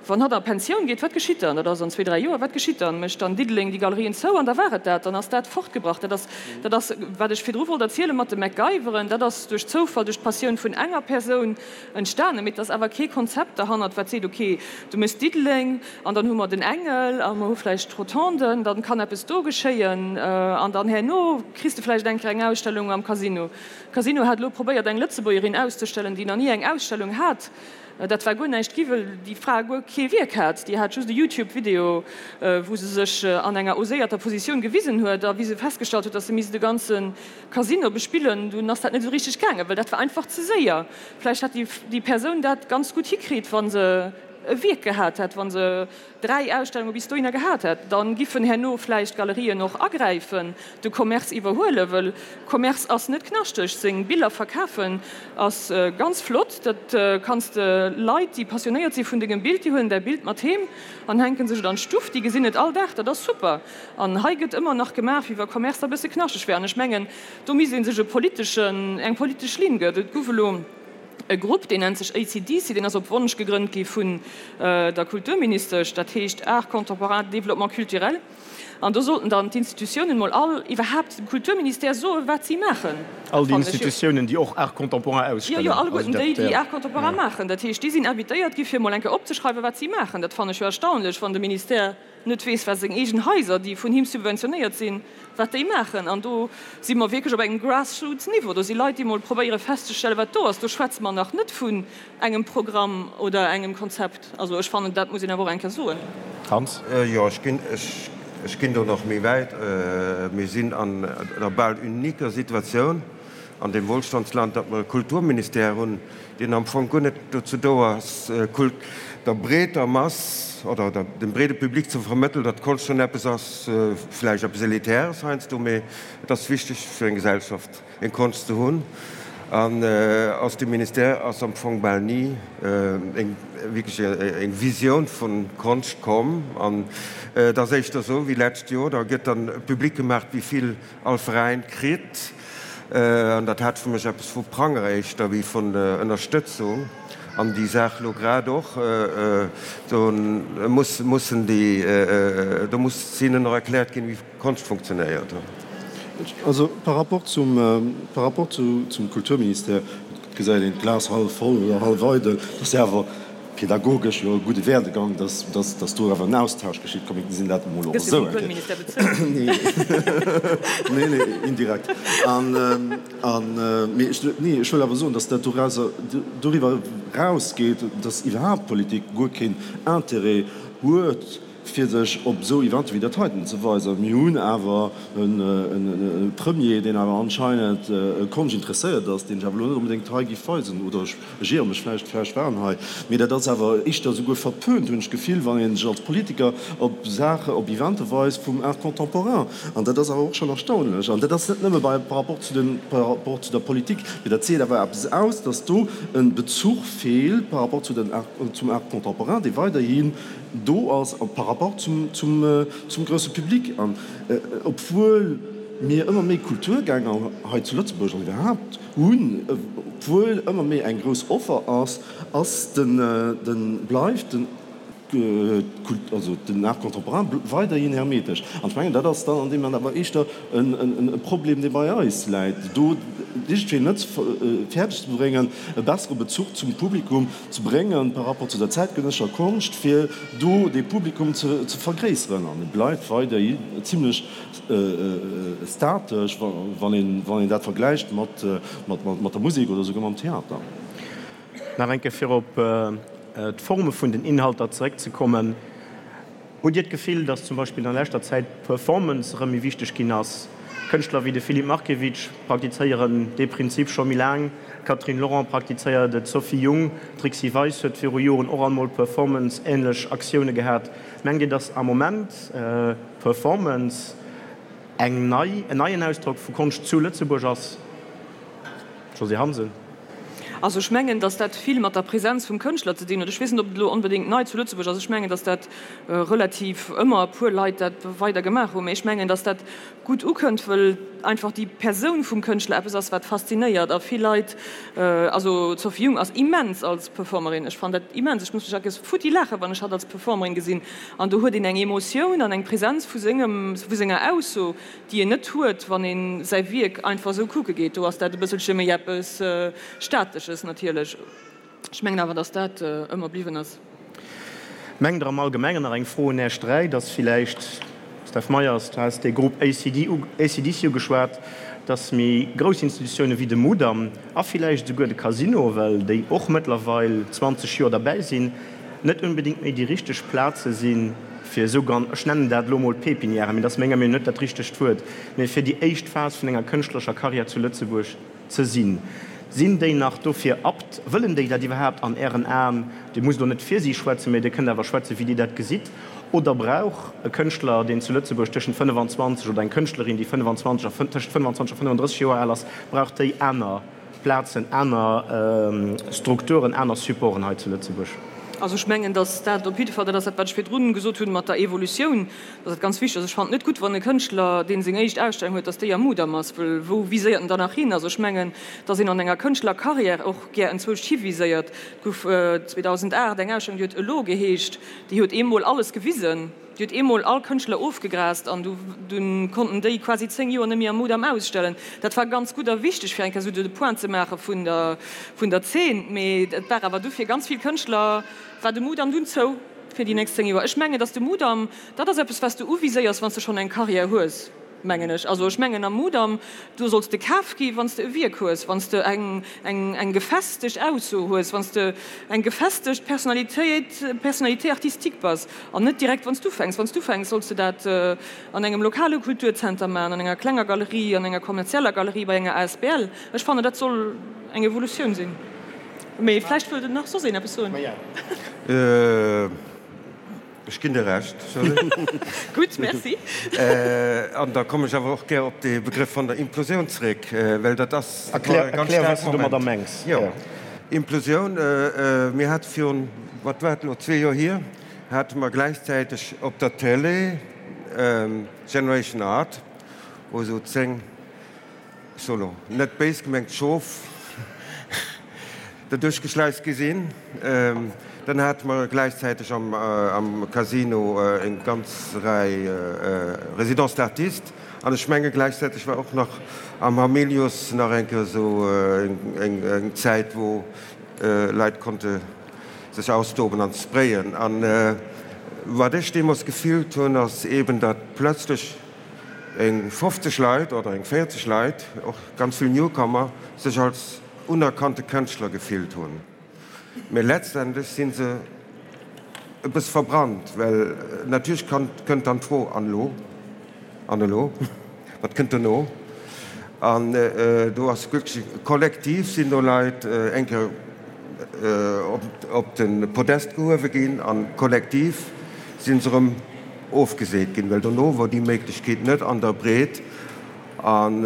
Wann hatt a Pensioun geet, wat geschitt dann? Dat ass an zwee, dräi Joer. Wat geschitt dann? Mécht dann Diddeleng déi Galerien zou an da war et dat? Dann ass dat fortgebracht. Dat ass, dat ass, wat ech virdru wollt erziele mat de MacGyveren, dat ass duerch Zoufall, duerch d'Passioun vun enger Persoun entstanen. Mee et ass awer kee Konzept derhannert, wat seet, okay, du méchs Diddeleng an dann hu mer den Engel a mer hu vläicht d'Rotonden, dann kann eppes do geschéien an dann herno kriss de vläicht eng Kéier eng Ausstellung am Casino. Casino hat elo probéiert, eng Lëtzebuergerin auszestellen, déi nach ni eng Ausstellung hat. Dat war guer näischt gi, wëll déi Fra guer kee Wierk hat. Déi hat just e YouTube-Video, wou se sech an enger oséierter Positioun gewisen huet. A wéi se festgestallt huet, datt se misst e ganze Casino bespillen, dunn ass dat net esou richteg gaangen, well dat war einfach ze séier. Vläicht hätt déi Persoun dat ganz gutt hikritt, wa se. e Wierk gehat hätt, wa se 3 Ausstellunge bis dohinner gehat hätt, da giffen herno vläicht d'Galerien och agräifen, de Commerce iwwerhuelen, wëll Commerce ass net knaschteg. Seng Biller verkafen ass ganz flott, dat kanns de Leit, déi passionéiert si vun dengem Bild, déi huelen däi Bild mat heem an hänke sech et an d'Stuff, déi gesinn et all Dag, dat ass super. An hei gëtt ëmmer nach gemaach, wéi wa Commerce da bësse knaschteg wär. An ech mengen, do misst ee sech e politeschen, eng politesch Linn gëtt. Et gouf elo e Grupp, deen nennt sech ACDC, deen ass op Wonsch gegrënnt gi vun der Kulturministesch, dat heescht Art contemporain, développement culturel. An do sollten dann d'Institutiounen mol all, iwwerhaapt dem Kulturministère soen, wat si maachen. All déi Institutiounen, déi och Art contemporain ausstellen. Jo, jo, alleguerten déi, déi Art contemporain maachen. Dat heescht, déi sinn invitéiert gi fir mol eng Kéier opzeschreiwen, wat si maachen. Dat fannen ech jo erstaunlech, wann de Ministère net weess, wat seng eegen Haiser, déi vun him subventionéiert sinn, wat déi maachen. An do si mer wierklech op engem Grassroots-Niveau. Do si Leit, déi mol probéiere festzestellen, wat do ass. Do schwätze mer nach net vun engem Programm oder engem Konzept. Also ech fannen, dat muss een awer och eng Kéier soen. Hans? Jo, ech ginn, ech ginn do nach méi wäit. Mir sinn an der bal uniquer Situatioun an deem Wohlstandsland, datt mer e Kulturministère hunn, deen am Fong guer net dozou do ass, der breeter Mass oder dem breede Public ze vermëttelen, datt Konscht schonn eppes ass, vläicht eppes Elitäres heiansdo, mee et ass wichteg fir eng Gesellschaft, eng Konscht ze hunn. An aus dem Ministère ass am Fong bal ni eng wierklech eng Visioun vu Konscht komm. An et ass éischter esou wéi d'lescht Joer, da gëtt dann public gemaach, wéi vill all Veräin kritt, an dat hat fir mech eppes vu Pranger éischter wéi vun Ënnerstëtzung, an déi Saach lo grad och, do muss, mussen déi, do muss hinnen och erkläert ginn, wéi Konscht funktionéiert. Also par rapport zum, par rapport zu, zum Kulturministère, et gesäit een d'Glas hallef voll oder hallef eidel, dat ass jo awer Pedagogesch jo e gudde Werdegang, dass, dass, dass do awer en Austausch geschitt. Komm, mir gesinn dat emol och Gëss de esou vum eng Kéier. Kulturministère bezuelt? Nee, nee, nee, indirekt. An, an, mee ech, nee, ech wëll awer soen, dass dat dorauser, doriwwer erausgeet, dass iwwerhaapt d'Politik guer keen Intérêt huet, fir sech op esou Eventer wéi dat heiten ze weisen. Mir hunn awer e Premier, deen awer anscheinend Konscht interesséiert ass, deen ech awer elo net onbedéngt hei géif weisen, oder ech iere mech vläicht, vläicht war en hei, mee dat ass awer éischter esouguer verpönt, hunn ech d'Gefill, wann ee sech als Politiker op Saache, op Evente weist vum Art contemporain. An dat ass awer och schonn erstaunlech. An dat ass net nëmme bei, par rapport zu den, par rapport zu der Politik, mee dat seet awer eppes aus, dass do e Bezuch feelt par rapport zu den Art, zum Art contemporain, dee weiderhi do ass par rapport zum, zum, zum grousse Public. An obwuel mir ëmmer méi Kulturgänger hei zu Lëtzebuerg an iwwerhaapt hunn, obwuel ëmmer méi eng grouss Offer ass, ass den, den, bleift den, also den Art contemporain weiderhin hermetesch. An ech mengen, dat ass dann an deem Moment awer éischter e Problem, dee bei eis läit, do iergendwéi net fäerdeg ze bréngen, e bessere Bezuch zum Publikum ze bréngen par rapport zu der zäitgenëssescher Konscht, fir do dee Publikum ze vergréisseren. An e bleift weiderhi zimlech statesch, wann een dat vergläicht mat der Musek oder souguer mam Theater. Nach eng Kéier fir op d'Forme vun den Inhalter zeréckzekommen. Hutt Dir d'Gefill, datt zum Beispill an leschter Zäit d'Performance erëm méi wichteg ginn ass? Kënschtler wéi de Filip Markiewicz praktizéieren dee Prinzip scho méi laang, d'Catherine Laurent praktizéiert et, d'Sophie Jung, d'Trixi Weis huet viru Joren och alt mol Performance-änlech Aktioune gehat. Mengt Dir, datt am Moment Performance eng nei, en neien Ausdrock vu Konscht zu Lëtzebuerg ass? Josée Hansen. Also ech mengen, datt dat vill mat der Präsenz vum Kënschtler ze dinn huet. Ech weess net, ob et elo onbedéngt nei zu Lëtzebuerg ass. Ech mengen, datt dat relativ ëmmer e puer Leit dat weider gemaach hunn. Mee ech mengen, datt dat gutt ukënnt, wëll einfach déi Persoun vum Kënschtler eppes ass, wat faszinéiert. A vill Leit, also d'Sophie Jung ass immens als Performerin. Ech fannen dat immens. Ech muss mech eckes futti laachen, wann ech hatt als Performerin gesinn. An do huet een eng Emotioun an eng Präsenz vu sengem, vu senger Ausso, déi een net huet, wann een säi Wierk einfach esou kucke geet. Do ass dat e bësselche méi eppes Statesches natierlech. Ech mengen awer, datt dat ëmmer bliwwen ass. Mengt Der am Allgemengen, nach eng Fro un Äech 3, datt villäicht, Steph Meyers, du has dee Grupp ACD, ACDC ugeschwat, datt méi grouss Institutioune wéi de Mudam a villäicht esouguer de Casino, well déi och mëttlerweil 20 Joer derbäi sinn, net unbedéngt méi déi richteg Plaze sinn, fir esou gan, ech nennen dat elo emol Pépinièren, mee dat ass menger Meenung net dat richtegt Wuert, mee fir déi éischt Phas vun enger kënschtlerescher Karriär zu Lëtzebuerg ze sinn. Sinn déi nach dofir apt? Wëllen déi dat iwwerhaapt an Ären Aen? Dir musst elo net fir si schwätzen, mä Dir kënnt awer schwätzen, wéi Dir dat gesitt. Oder brauch e Kënschtler, deen zu Lëtzebuerg tëschent 25, oder eng Kënschtlerin, déi 25 a tëschent 25 a 35 Joer al ass, brauch déi aner Plazen, aner Strukturen, aner Supporten hei zu Lëtzebuerg? Also ech mengen, datt dat op jidde Fall, dat ass dat, wat ech virdrun gesot hunn mat der Evolutioun, datt dat ganz wichteg ass. Ech fannen et net gutt, wann e Kënschtler, dee seng éischt Ausstellung huet, datt déi am Mudam ass, well wou viséiert en dann nach hin? Also ech mengen, datt een an enger Kënschtlerkarriär och gär enzwousch hiviséiert. Et gouf 2008 eng Ausstellung, déi huet Elo geheescht, déi huet eemol alles gewisen, déi huet eemol all Kënschtler ofgegrast an du dunn konnten déi quasi 10 Joer net méi am Mudam ausstellen. Dat war ganz gutt a wichteg, fir eng Kéier esou de Point ze maache vun der vun der Zeen. Mee et war awer du fir ganz vill Kënschtler war de Mudam dunn zou fir déi nächst 10 Joer. Ech mengen, datt de Mudam, dat ass eppes, wat s de uviséiers, wann s de schonn eng Karriär hues. Mengen ech. Also ech mengen am Mudam, do solls de kaf gi wann s de e Wierk hues, wann s de eng, eng, eng gefestegt Ausso hues, wann s de eng gefestegt Personnalitéit, Personnalité artistique bass an net direkt wann s d'ufänks. Wann s d'ufänks, solls de dat an engem lokale Kulturzenter maachen, an enger klenger Galerie, an enger kommerzieller Galerie, bei enger asbl. Ech fannen, dat soll eng Evolutioun sinn. Mee vläicht wëllt nach soss een eppes soen. Ech ginn dir Recht. Gutt, merci. An da kommen ech awer och gär op dee Begrëff vun der Implosioun zréck, well dat ass e ganz staark Erklär, wat s de domadder mengs. Jo, Implosioun, mir hate virun, wat war et elo, zwee Joer hier, hate mer gläichzäiteg op der Télé Generation Art, wou esou 10, Ech soe lo, net béis gemengt, Schof derduerch geschleist gi sinn. Dann hate mer gläichzäiteg am Casino eng ganz Rei Résidences d'artistes an ech menge gläichzäiteg war och nach am Hamilius nach eng Kéier esou eng Zäit, wou Leit konnte sech austoben an sprayen. An wat ech deemools gefillt hunn, ass eeben, datt plötzlech eng 50 Leit oder eng 40 Leit, och ganz vill Newcomer, sech als unerkannte Kënschtler gefillt hunn. Mee letztendlech si se e bësse verbrannt, well natierlech kënnt dann d'Fro, An elo? An elo? Wat kënnt dono? An do ass wierklech kollektiv sinn do Leit eng Kéier op de Podest gehuewe ginn a kollektiv si se erëm ofgeseet ginn, well dono wor déi Méiglechkeet net an der Breet an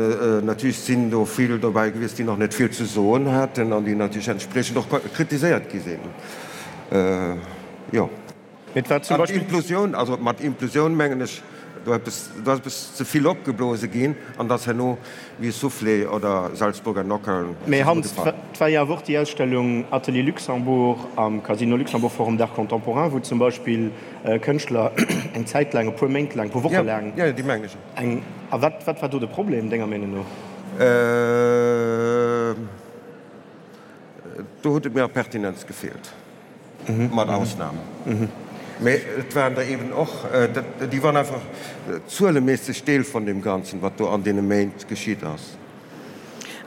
natierlech sinn do vill dobäi gewiescht, déi nach net vill ze soen haten an déi natierlech entspriechend och kritiséiert gi sinn. Jo. Mee et war zum An Beispill. d'Implosioun, also mat Implosioun mengen ech, do eppes, do ass eppes ze vill opgeblose ginn an et ass herno wéi e Soufflé oder Salzburger Nockerln Mee Hans, zesummegefall. et war jo awer och déi Ausstellung Atelier Luxembourg am Casino Luxembourg Forum d'Art Contemporain, wou zum Beispill Kënschtler eng Zäit laang, e puer Méint laang, e puer Woche laang. Jo, jo, déi mengen ech. Eng, a wat, wat war do de Problem, denger Meenung no? Do huet et mir a Pertinenz gefeelt, mat Ausnam. Mee et waren der eeben och, déi waren einfach zueleméisseg Deel vun deem Ganzen, wat do an deene Méint geschitt ass.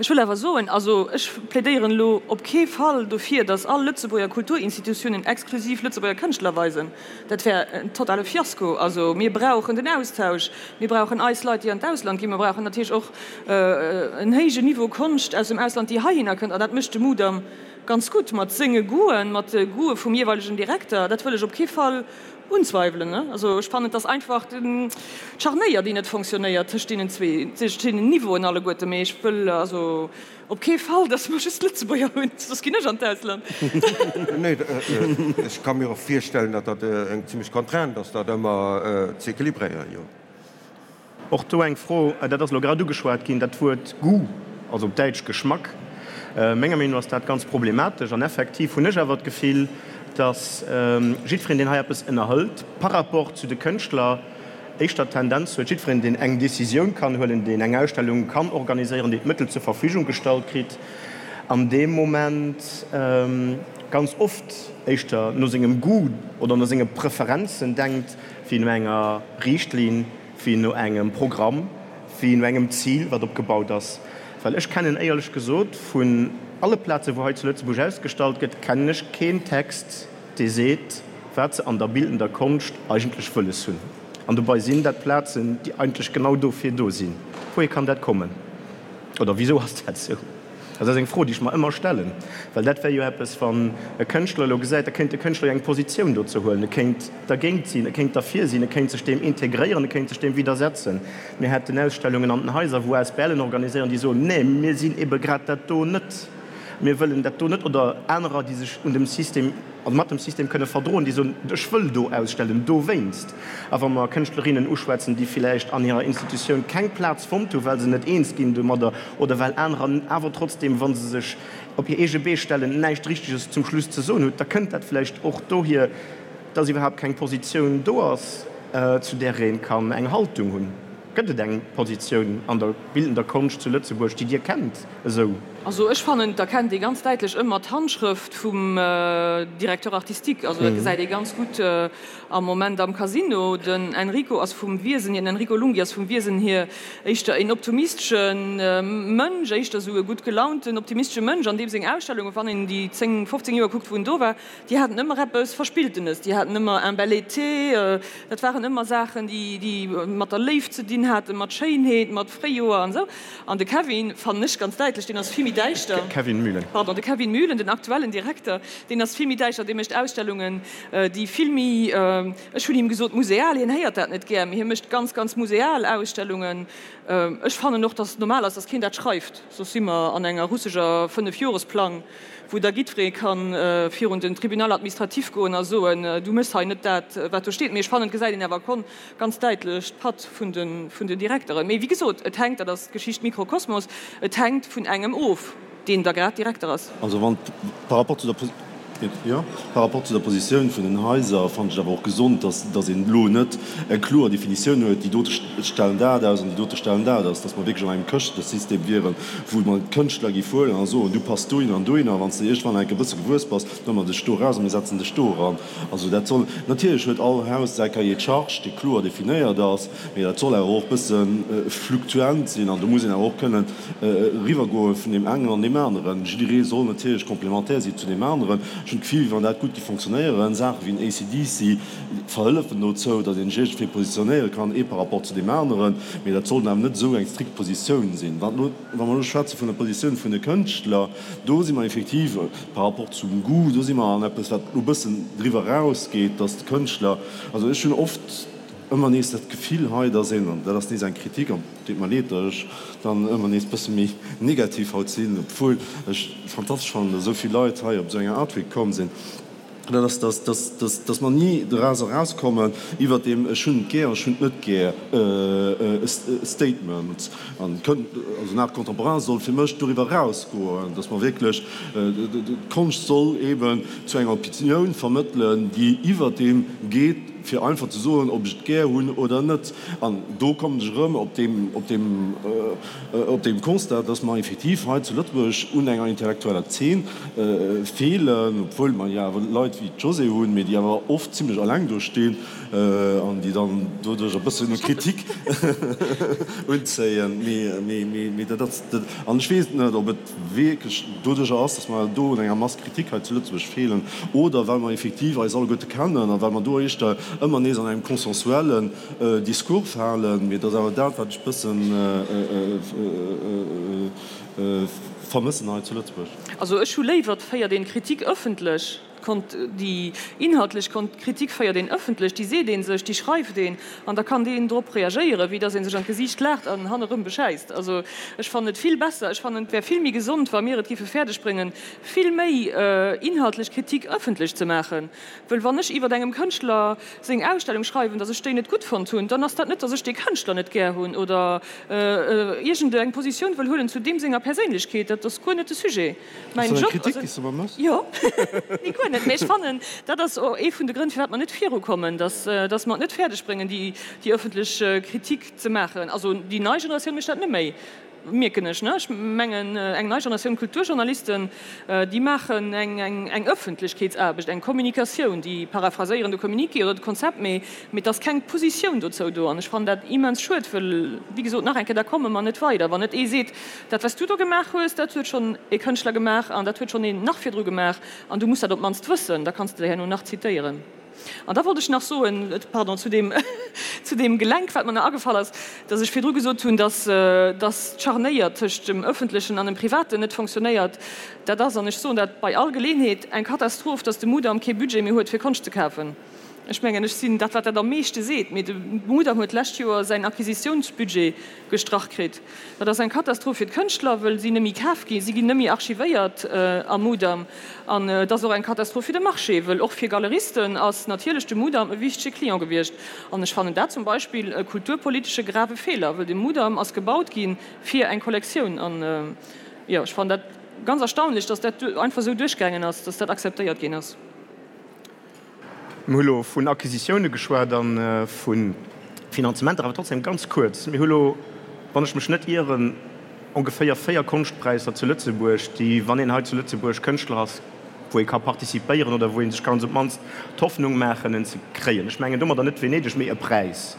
Ech wëll awer soen, also ech plädéieren elo op kee Fall dofir, datt all Lëtzebuerger Kulturinstitutiounen exklusiv Lëtzebuerger Kënschtler weisen. Dat wär en totale Fiasko. Also mir brauchen den Austausch, mir brauchen eis Leit, déi an d'Ausland ginn, mir brauchen natierlech och en héijen Niveau Konscht aus dem Ausland, déi heihinner kënnt. An dat mécht de Mudam ganz gutt mat senge Goûten, mat de Goûte vum jeeweilegen Direkter. Dat wëll ech op kee Fall Unzweiwelen, ne? Also ech fannen, et ass einfach d'Scharnéier, déi net fonctionnéiert tëscht deenen zwee, tëscht deenen Niveauen alleguerte. Mee ech wëll also op kee Fall, datt mer just Lëtzebuerger hunn, soss ginn ech an d'Ausland. Nee, ech ka mir och virstellen, datt dat eng zimlech Contrainte ass, dat ëmmer ze equilibréieren, jo. Och do eng Fro, dat ass elo grad ugeschwat ginn, dat Wuert Goût, also op Däitsch Geschmack. Menger Meenung no ass dat ganz problematesch. An effektiv hunn ech awer d'Gefill, datt jiddwereen, deen hei eppes ënnerhëlt par rapport zu de Kënschtler, éischter d'Tendenz huet, jiddwereen, deen eng Décisioun kann huelen, deen eng Ausstellung kann organiséieren, deen d'Mëttel zur Verfügung gestallt kritt, an deem Moment ganz oft éischter no sengem Goût oder no senge Preferenzen denkt, wéi no enger Riichtlinn, wéi no engem Programm, wéi no engem Zil, wat opgebaut ass. Well ech kennen éierlech gesot vun alle Plazen, wou hei zu Lëtzebuerg ausgestallt gëtt, kennen ech keen Text, dee seet, wat se an der bildender Konscht eigentlech wëlles hunn. An dobei sinn dat Plazen, déi eigentlech genau dofir do sinn. Wouhier kann dat kommen? Oder wisou ass dat esou? Dat ass eng Fro, déi ech mer ëmmer stellen, well dat wär jo eppes, wann e Kënschtler elo gesäit, da kéint de Kënschtler jo eng Positioun dozou huelen, e kéint dergéint sinn, e kéint derfir sinn, e kéint sech deem integréieren, e kéint sech deem widdersetzen. Mir hätten Ausstellungen an den Haiser, wou ASBLen organiséieren, déi soen, Nee, mir sinn ebe grad dat do net, mir wëllen dat do net. Oder anerer, déi sech un dem System, also mat dem System kënne verdroen, déi soen, Ech wëll do ausstellen dowéinst. A wa mer Kënschtlerinnen uschwätzen, déi villäicht an hirer Institutioun keng Plaz fonnt hu well se net eens ginn domadder oder well anerer awer trotzdeem, wa se sech op hir eege Bee stellen, näischt Richteges zum Schluss ze soen hutt, da kënnt dat vläicht och dohier, dass iwwerhaapt keng Positioun do ass, zu där ee kann eng Haltung hunn. Gëtt et eng Positioun an der bildender Konscht zu Lëtzebuerg, déi Dir kennt esou? Also ech fannen, et erkennt ee ganz däitlech ëmmer d'Handschrëft vum Directeur artistique. Also dat gesäit ee ganz gutt am Moment am Casino. Den Enrico ass vum Wiesen hier, den Enrico Lunghi ass vum Wiesen hier éischter een optimistesche Mënsch, éischter esou e gutt gelaunten, optimistesche Mënsch, an deem seng Ausstellungen, wann een déi 10, 15 Joer kuckt, wou en do war, Déi haten ëmmer eppes Verspilltenes, déi haten ëmmer un bel été, dat waren ëmmer Saachen, déi, déi mat der Léift ze dinn haten, mat Schéinheet, mat Fréijoer an esou. An de Kevin, fannen ech ganz däitlech, deen ass vill méi däischter. Kevin Mühlen. Pardon, de Kevin Mühlen, den aktuellen Direkter, deen ass vill méi däischter, dee mécht Ausstellungen, déi vill méi, ech hunn him gesot museal, hien héiert dat net gär, mee hie mécht ganz, ganz museal Ausstellungen. Ech fannen och, dass et normal ass, dass keen dat schreift, soss si mer an enger russeger Fënnefjoresplang. wou da jiddweree ka virun den Tribunal administratif goen a soen, du méchs hei net dat, wat do steet. Mee ech fannen, et gesäit een awer ganz däitlech d'Patt vun den Direkteren. Mee wéi gesot, et hänkt, dat ass d'Geschicht Mikrokosmos, et hänkt vun engem of, deen da grad Direkter ass. Also wann, par rapport zu der, jo, par rapport zu der Positioun vun den Haiser fannen ech et awer och gesond, dass, dass een elo net eng kloer Definitioun huet, déi dote stellen dat aus an déi dote stellen dat aus, dass mer wierklech an engem Këschtesystem wieren, wou mer d'Kënschtler géif huelen a soen, du pass dohinner an dohinner, a wann s de iergendwann enke bësse gewuess bass, da huele mer dech do eraus a mir setzen dech do eran. Also dat soll, natierlech huet all Haus säi Cahier de charges, dee kloer definéiert ass, mee dat soll awer och bësse fluktuant sinn an do muss een awer och kënnen eriwwergoe vun deem engen an deem aneren. Jidderee soll natierlech complémentaire si zu deem aneren. Ech hunn d'Gefill, wéi wann dat gutt géif fonctionnéieren. Saache wéi en ACDC verhëllefen dozou, datt een sech iergendwéi positionéiere kann, ee par rapport zu deem aneren, mee dat sollt awer net esou eng strikt Positioun sinn. Wat elo, wa mer elo schwätze vun der Positioun vun de Kënschtler, do si mer effektiv par rapport zum Goût, do si mer an eppes, wat elo e bëssen driwwer erausgeet, datt de Kënschtler, also ech hunn oft ëmmer nees dat Gefill hei, datt een, an dat ass nees eng Kritik, an et deet mer leed, datt ech dann ëmmer nees e bësse méi negativ haut sinn, obwuel ech fantastesch fannen, datt esou vill Leit hei op esou enger Art Week komm sinn, Dat ass, dass, dass, dass, dass mer ni doraus erauskommen iwwert deem ech hunn et gär, ech hunn et net gär Statement. An kënnt, also den Art contemporain soll fir mech doriwwer erausgoen, dass mer wierklech, d'Konscht soll eeben zu enger Opinioun vermëttelen, déi iwwert deem geet, fir einfach ze soen, ob ech et gär hunn oder net. An do kommen ech erëm op deem, op deem, op deem Constat, dass mer effektiv hei zu Lëtzebuerg un enger intellektueller Zeen feelen, obwuel mer jo awer Leit wéi d'Josée hunn, mee déi awer oft zimlech alleng do stinn an déi dann doduerch e bëssen Kritik unzéien. Mee dat ass, an ech weess net, ob et wierklech doduercher ass, dass mer do un enger Masse critique hei zu Lëtzebuerg feelen oder well mer effektiv eis alleguerte kennen a well mer do éischter ëmmer nees an engem consensuellen Discours falen. Mee et ass awer dat, wat ech e bëssen vermëssen hei zu Lëtzebuerg. Also ech hu léiwer, et féiert een d'Kritik ëffentlech, déi inhaltlech Kritik féiert een ëffentlech, déi seet ee sech, déi schreift een an da kann deen drop reagéieren, wéi datt ee sech an d'Gesiicht laacht an hannerëm beschäisst. Also ech fannen et vill besser, ech fannen et wär vill méi gesond, wa mir et géife fäerdeg bréngen, vill méi inhaltlech Kritik ëffentlech ze maachen. Wëll wann ech iwwert engem Kënschtler seng Ausstellung schreiwen, datt ech déi net gutt fonnt hunn, dann ass dat net, datt ech dee Kënschtler net gär hunn oder iergend eng Positioun wëll huelen zu deem senger Perséinlechkeet. Dat ass guer net de Sujet. Mäin Job ass et. Jo, nee, guer net. Mee ech fannen, dat ass och ee vun de Grënn, firwat mer net virukommen, datt datt mer et net fäerdeg bréngen, déi déi ëffentlech Kritik ze maachen. Also déi nei Generatioun mécht dat net méi. Mierken ech, ne? Ech mengen, eng nei Generatioun Kulturjournalisten, déi maachen eng Ëffentlechkeetsaarbecht, eng Kommunikatioun, déi paraphraséieren de Communiqué oder de Konzept, mee et ass keng Positioun dozou do. An ech fannen dat immens schued, wëll, wéi gesot, nach eng Kéier, da komme mer net weider, wann net ee seet, Dat, wat s du do gemaach hues, dat huet schonn e Kënschtler gemaach an dat huet schonn een nach virdru gemaach an du muss dat op d'mannst wëssen, da kanns de der herno nach zitéieren. An da wollt ech nach soen, pardon, zu deem, zu deem Gelenk, wat mer nach agefall ass, dass ech virdru gesot hunn, dass, dass d'Scharnéier tëscht dem Öffentlechen an dem Privaten net fonctionnéiert. Dat ass, an ech soen dat bei all Geleenheet, eng Katastroph, dass de Mudam kee Budget méi huet, fir Konscht ze kafen. Ech mengen, ech sinn dat, wat dat am meeschte seet, mee de Mudam huet d'lescht Joer säin Acquisitiounsbudget gestrach kritt. Dat ass eng Katastroph fir d'Kënschtler, wëll si nëmmi kaf ginn, si ginn nëmmi archivéiert am Mudam. An et ass och eng Katastroph fir de Marché, wëll och fir Galeristen ass natierlech de Mudam e wichtege Client gewiescht. An ech fannen dat zum Beispill e kulturpolitesche grave Feeler, wëll de Mudam ass gebaut gi fir eng Kollektioun. An jo, ech fannen dat ganz erstaunlech, datt dat einfach esou duerchgaangen ass, datt dat akzeptéiert ginn ass. Mir hu lo vun Acquisitioune geschwat a vu Finanzementer, awer trotzdem ganz kuerz, Mir hu lo, wann ech mech net ieren, ongeféier 4 Konschtpräisser zu Lëtzebuerg, déi, wann een hei zu Lëtzebuerg Kënschtler ass, wou ee ka participéieren oder wou ee sech kann op d'mannst d'Hoffnung maachen, en ze kréien. Ech mengen domadder net Venedeg, mee e Präis.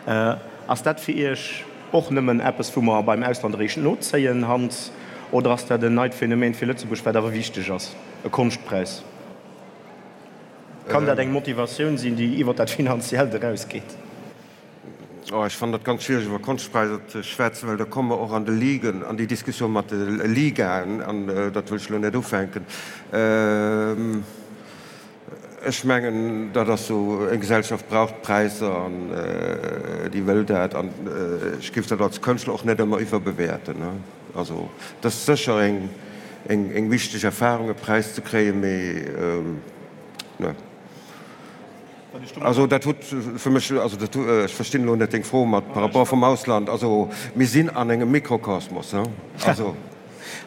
Ass dat fir Iech och nëmmen eppes, wou mer beim Ausland eréischt nozéien, Hans, oder ass dat en neit Phänomen fir Lëtzebuerg, wat awer wichteg ass, e Konschtpräis? Kann dat eng Motivatioun sinn, déi iwwer dat Finanziellt erausgeet? Oh, ech fannen dat ganz schwiereg iwwer Konschtpräisser ze schwätzen, well da komme mer och an de Ligen, an déi Diskussioun mat de Ligaen, an dat wëll ech elo net ufänken. Ech mengen, dat ass esou, eng Gesellschaft brauch Präisser an déi wëll dat, an ech géif dat als Kënschtler och net ëmmer iwwerbewäerten. Also, et ass sécher eng eng wichteg Erfahrung, e Präis ze kréien, mee ne. Also dat huet fir mech, also dat, ech verstinn elo net deng Fro mat par rapport vum Ausland. Also mir sinn an engem Mikrokosmos, he, also.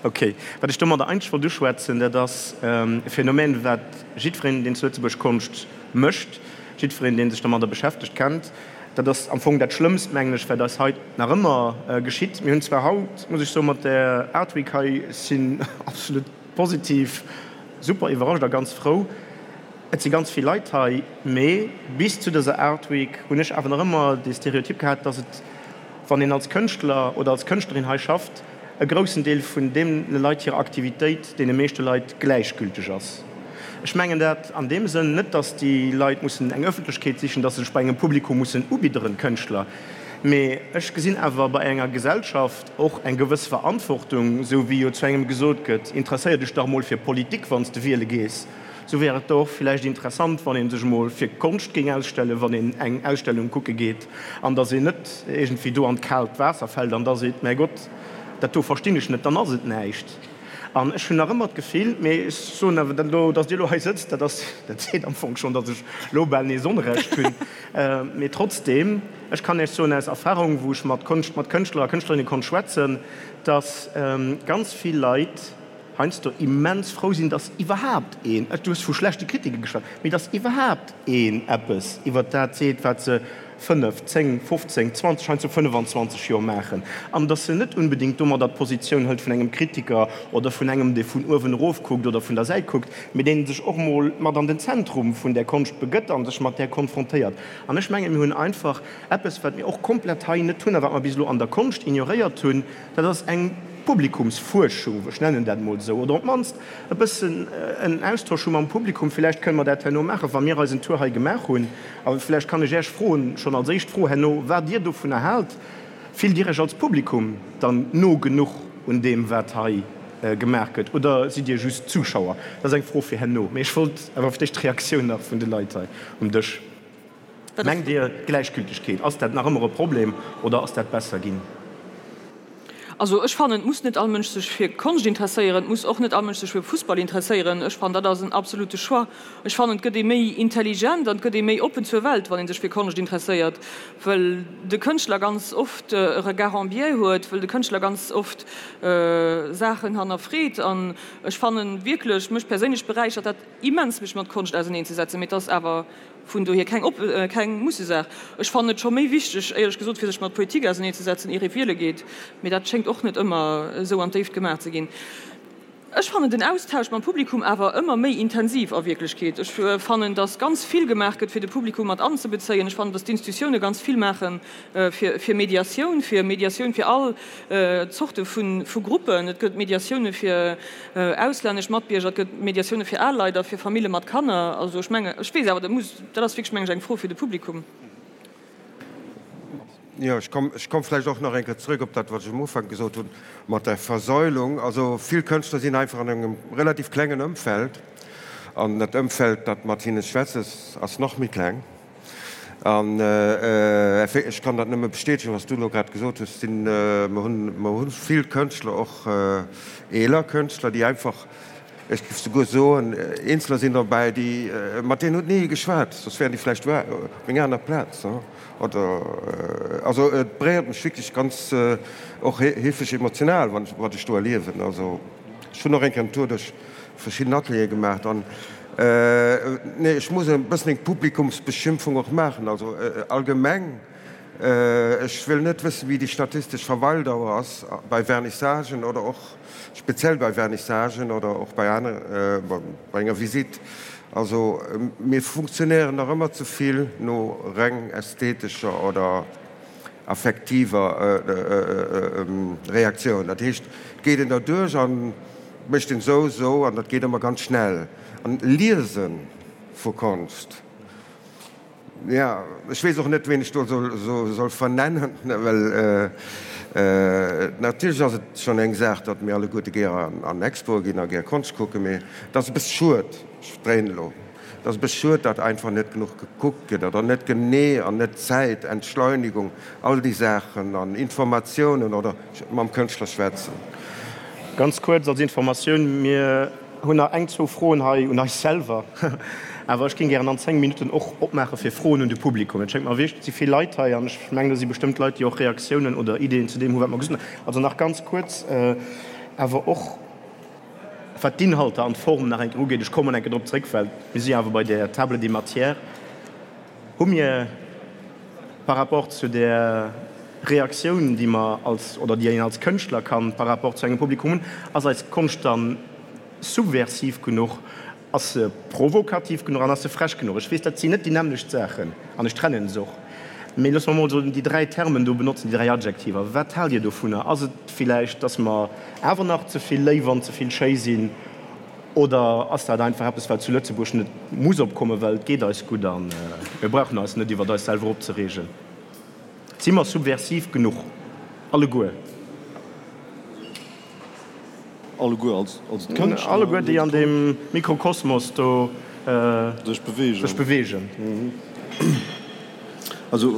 Ok. Wat ech domadder eigentlech wollt uschwätzen, dat ass e Phänomen, wat jiddwereen, deen zu Lëtzebuerg Konscht mécht, jiddwereen, dee sech domadder beschäftegt, kennt. Dat ass am Fong dat Schlëmmst, mengen ech, wat eis hei nach ëmmer geschitt. Mir hunn zwar haut, muss ech soen, mat där Art Week hei, sinn absolut positiv super iwwerrascht a ganz frou. Et si ganz vill Leit hei, mee bis zu dëser Art Week hunn ech awer nach ëmmer dee Stereotyp gehat, dass et, wann een als Kënschtler oder als Kënschtlerin hei schafft, e groussen Deel vun deene Leit hirer Aktivitéit deene meeschte Leit gläichgülteg ass. Ech mengen dat an deem Sënn net, datt déi Leit mussen eng Ëffentlechkeet sichen, datt se sech bei engem Publikum mussen ubidderen, d'Kënschtler, mee ech gesinn awer bei enger Gesellschaft och eng gewëss Verantwortung, esou wéi jo zu engem gesot gëtt, interesséier dech dach mol fir Politik, wann s de wiele gees, esou wär et do och villäicht interessant, wann ee sech emol fir Konscht géing ausstellen, wann een eng Ausstellung kucke geet, an datt een net iergendwéi do an d'kaalt Waasser fält an da seet, Mäi Gott, dat do verstinn ech net, dann ass et näischt. An ech hunn nach ëmmer d'Gefill, mee ech soen awer dat elo, datt Dir elo hei sëtzt, dat ass, dat seet am Fong schonn, datt ech elo bal nees Onrecht hunn. Mee trotzdeem, ech kann Iech soen aus Erfahrung, wou ech mat Konscht, mat Kënschtler a Kënschtlerinne konnt schwätzen, datt ganz vill Leit heiansdo immens frou sinn, datt iwwerhaapt een, du hues vu schlechte Kritike geschwat, mee datt iwwerhaapt een eppes iwwert dat seet, wat se 5, 10, 15, 20, heiansdo 25 Joer maachen, an datt se net unbedéngt domadder d'Positioun hëlt vun engem Kritiker oder vun engem, dee vun uewen erof kuckt oder vun der Säit kuckt, mee dee sech och mol mat an den Zentrum vun där Konscht begëtt a sech mat där konfrontéiert. An ech mengen, mir hunn einfach eppes, wat mir och komplett hei net hunn a wat mer bis elo an der Konscht ignoréiert hunn, dat ass eng Publikumsfuerschung, ech nennen dat emol esou, oder op d'mannst e bëssen en Austausch hu mam Publikum. Villäicht kënne mer dat herno maachen, wa mir eisen Tour hei gemaach hunn. A vläicht kann ech Iech froen, schonn als éischt Fro herno, wat Dir dovunner haalt. Fillt Dir Iech als Publikum dann no genuch un deem, wat hei gemaach gëtt, oder sidd Dir just Zuschauer? Dat ass eng Fro fir herno. Mee ech wollt awer fir d'éischt d'Reaktioun nach vun de Leit hei um Dësch. Mengt Dir, d'Gläichgültegkeet, ass dat nach ëmmer e Problem oder ass dat besser ginn? Also ech fannen, et muss net all Mënsch sech fir Konscht interesséieren, et muss och net all Mënsch sech fir Fussball interesséieren. Ech fannen, dat ass en absolute Choix. Ech fannen, et gëtt ee méi intelligent an et gëtt ee méi oppen zur Welt, wann ee sech fir Konscht interesséiert, well de Kënschtler ganz oft e Regard en biais huet, well de Kënschtler ganz oft Saachen hannerfreet. An ech fannen wierklech, mech perséinlech beräichert dat immens, mech mat Konscht auserneenzesetzen, mee et ass awer Vun dohier keng op keng Mussesaach. Ech fannen et scho méi wichteg, éierlech gesot, fir sech mat Politik auserneezesetzen, ier ee wiele geet. Mee dat schéngt och net ëmmer esou an d'Déift gemaach ze ginn. Ech fannen den Austausch mam Publikum awer ëmmer méi intensiv a Wierklechkeet. Ech fannen, datt ganz vill gemaach gëtt, fir de Publikum mat anzebezéien. Ech fannen, datt d'Institutioune ganz vill maache fir Mediatioun, fir Mediatioun fir all Zorte vu Gruppen. Et gëtt Mediatioune fir auslännesch Matbierger, et gëtt Mediatioune fir al Leit a fir Famille mat Kanner. Also ech mengen, ech weess awer, dat muss, dat ass wierklech, mengen ech, eng Fro fir de Publikum. Jo, ech komm, ech komm vläicht och nach eng Kéier zrëck op dat, wat ech um Ufank gesot hunn, mat der Versäulung. Also vill Kënschtler sinn einfach an engem relativ klengen Ëmfeld, an dat Ëmfeld, dat mat hinne schwätzt, ass, ass nach méi kleng. An ech kann dat nëmme bestätegen, wat s du elo grad gesot hues, sinn, mer hunn, mer hu vill Kënschtler, och eeler Kënschtler, déi einfach, Ech géif souguer soen, Eenzeler sinn derbäi, déi, mat deenen huet ni ee geschwat, soss wären déi vläicht op enger aner Plaz. Oder, also et beréiert mech wierklech ganz, och heefeg emotional, wann ech, wat ech do erliewen. Also ech hunn och eng Kéier en Tour duerch verschidden Ateliere gemaacht an, nee, ech muss e bëssen eng Publikumsbeschimpfung och maachen. Also allgemeng, ech wëll net wëssen, wéi déi statistesch Verweildauer ass bei Vernissagen oder och, Speziell bei Vernissagen oder och bei aner, bei enger Visite. Also mir funktionéieren nach ëmmer ze vill no reng ästhetescher oder affektiver Reaktioun. Dat heescht, et geet een derduerch a mécht een esou, esou an dat geet ëmmer ganz schnell. An Liese vu Konscht. Jo, ech weess och net, ween ech do soll vernennen, well natierlech ass et schonn eng Saach, datt mir alleguerte gär an Expoe ginn a gär Konscht kucken, mee et ass e bësse schued, ech dréinen elo, et ass e bësse schued, datt einfach net genuch gekuckt gëtt oder net genee an net Zäit, Entschleunigung, all déi Saachen an Informatiounen oder mam Kënschtler schwätzen. Ganz kuerz als Informatioun, Mir hunn nach eng, zwou Froen hei un eis selwer, awer ech géing gären an 10 Minutten och opmaache fir Froen un de Publikum. Et schéngt mer wierklech, et si vill Leit hei an ech mengen, do si bestëmmt Leit, déi och Reaktiounen oder Ideeën zu deem hu wat mer gesot hunn. Also nach ganz kuerz awer och wat d'Inhalter an d'Form nach eng Kéier ugeet, ech kommen eng Kéier drop zréck, well mir si jo awer bei der Table des matières, hu mir par rapport zu där Reaktioun, déi mer als, oder déi een als Kënschtler kann par rapport zu engem Publikum hunn, ass eis Konscht dann subversiv genuch, ass se provokativ genuch an ass se frech genuch? Ech weess, dat sinn net déi nämmlecht Saachen an ech trennen se och, mee loosse mer emol esou déi 3 Termen do benotzen, déi 3 Adjektiver. Wat haalt Dir dovunner? Ass et villäicht, dass mer awer nach ze vill léif an ze vill schéi sinn? Oder ass dat einfach eppes, wat zu Lëtzebuerg net muss opkommen, well et geet eis gutt a mir brauchen eis net iwwert eis selwer opzereegen? Si mer subversiv genuch alleguer? Alleguer als d'Kënschtler? Alleguer, déi an deem Mikrokosmos do sech beweegen. Also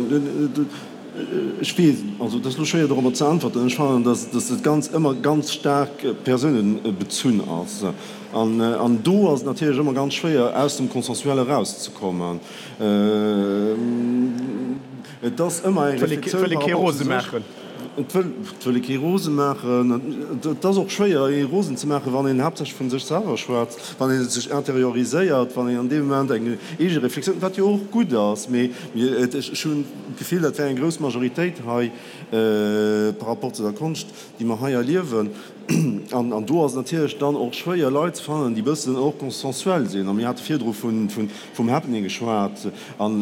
ech weess, also et ass elo schwéier dorobber ze äntwerten. Ech fannen, datt dat Ganzt ëmmer ganz staark persounebezunn ass. An do ass et natierlech ëmmer ganz schwéier, aus dem Consensuel erauszekommen. Et ass ëmmer eng Reflexioun par rapport zu sech. Et wëll ee kee rose maachen. Et ass och schwéier, ee rosen ze maachen, wann een haaptsächlech vu sech selwer schwätzt, wann ee sech interioriséiert, wann een an deem Moment eng eege Reflexioun, wat jo och gutt ass, mee ech hunn d'Gefill, dat wär eng grouss Majoritéit hei par rapport zu der Konscht, déi mer hei erliewen. An do ass et natierlech dann och schwéier, Leit ze fannen, déi e bëssen och consensuel sinn. A mir hate virdru vum Happening geschwat. An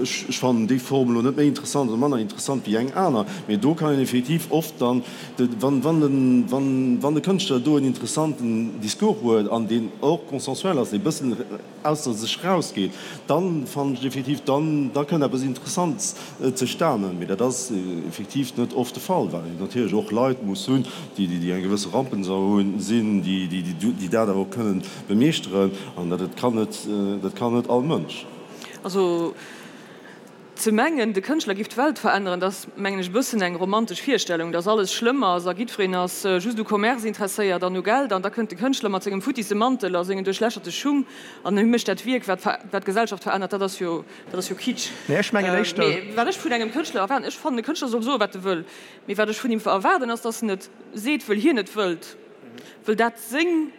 ech fannen déi Form elo net méi interessant oder manner interessant wéi eng aner. Mee do kann een effektiv oft dann, wann de Kënschtler do en interessanten Discours huet an deen och consensuel ass, dee bëssen, ausser sech rausgeet, dann fannen ech effektiv, dann da kënnt eppes Interessants zustanen. Mee dat ass effektiv net oft de Fall, well een natierlech och Leit muss hunn, déi déi eng gewësse Rampensau hunn, sinn, déi déi dat awer och kënnen bemeeschteren. An dat kann net, dat kann net all Mënsch. Also Ze mengen, de Kënschtler giff d'Welt veränneren, dat ass, mengen ech, e bëssen eng romantesch Virstellung, dass alles schlëmm ass a giddfereen ass just u Commerce interesséiert an u Geld an da kënnt de Kënschtler mat sengem futtisse Mantel a sengen duerchlächerte Schung an hie mécht dat Wierk, wat wat d'Gesellschaft verännert. Dat ass jo, dat ass jo Kitsch. Nee, ech mengen éischter. Mee wat ech vun engem Kënschtler erwaarden, ech fannen, e Kënschtler soll soen, wat e wëll, mee wat ech vun him erwaarden, ass, dass en et seet, wëll hien et wëllt, wëll dat seng.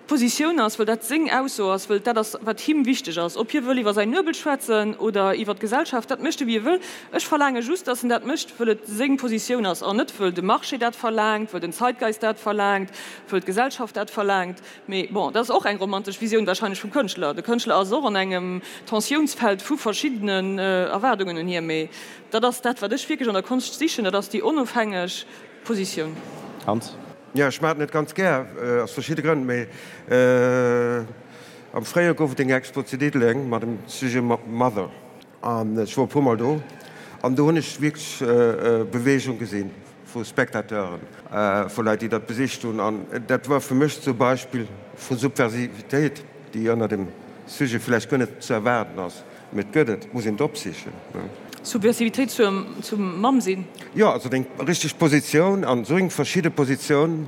Positioun ass, wëll dat seng Ausso ass, wëll dat ass, wat him wichteg ass. Ob hie wëll iwwer säin Nuebel schwätzen oder iwwer d'Gesellschaft, dat mécht e wéi e wëll. Ech verlaange just, datt en dat mécht, wëll et seng Positioun ass an net wëll de Marché dat verlaangt, wëll den Zeitgeist dat verlaangt, wëll d'Gesellschaft dat verlaangt. Mee bon, dat ass och eng romantesch Visioun wahrscheinlech vum Kënschtler. De Kënschtler ass och an engem Tensiounsfeld vu verschiddenen Erwaardungen un hie. Mee dat ass dat, wat ech wierklech an der Konscht sichen, dat ass déi onofhängeg Positioun. Hans? Jo, ech maachen et ganz gär, aus verschidde Grënn. Mee am Fréijoer gouf et eng Expo zu Diddeleng mat dem Sujet Mother. An ech wor e puermol do an do hunn ech wierklech Beweegung gesinn vu Spectateuren, vu Leit, déi dat besicht hunn. An dat war fir mech zum Beispill vu Subversivitéit, déi ënner dem Sujet vläicht guer net ze erwaarden ass. Mee et gëtt et, et muss een et opsichen. Subversivitéit zum Mamm sinn? Jo, also deng richteg Positioun an esou eng verschidde Positioun,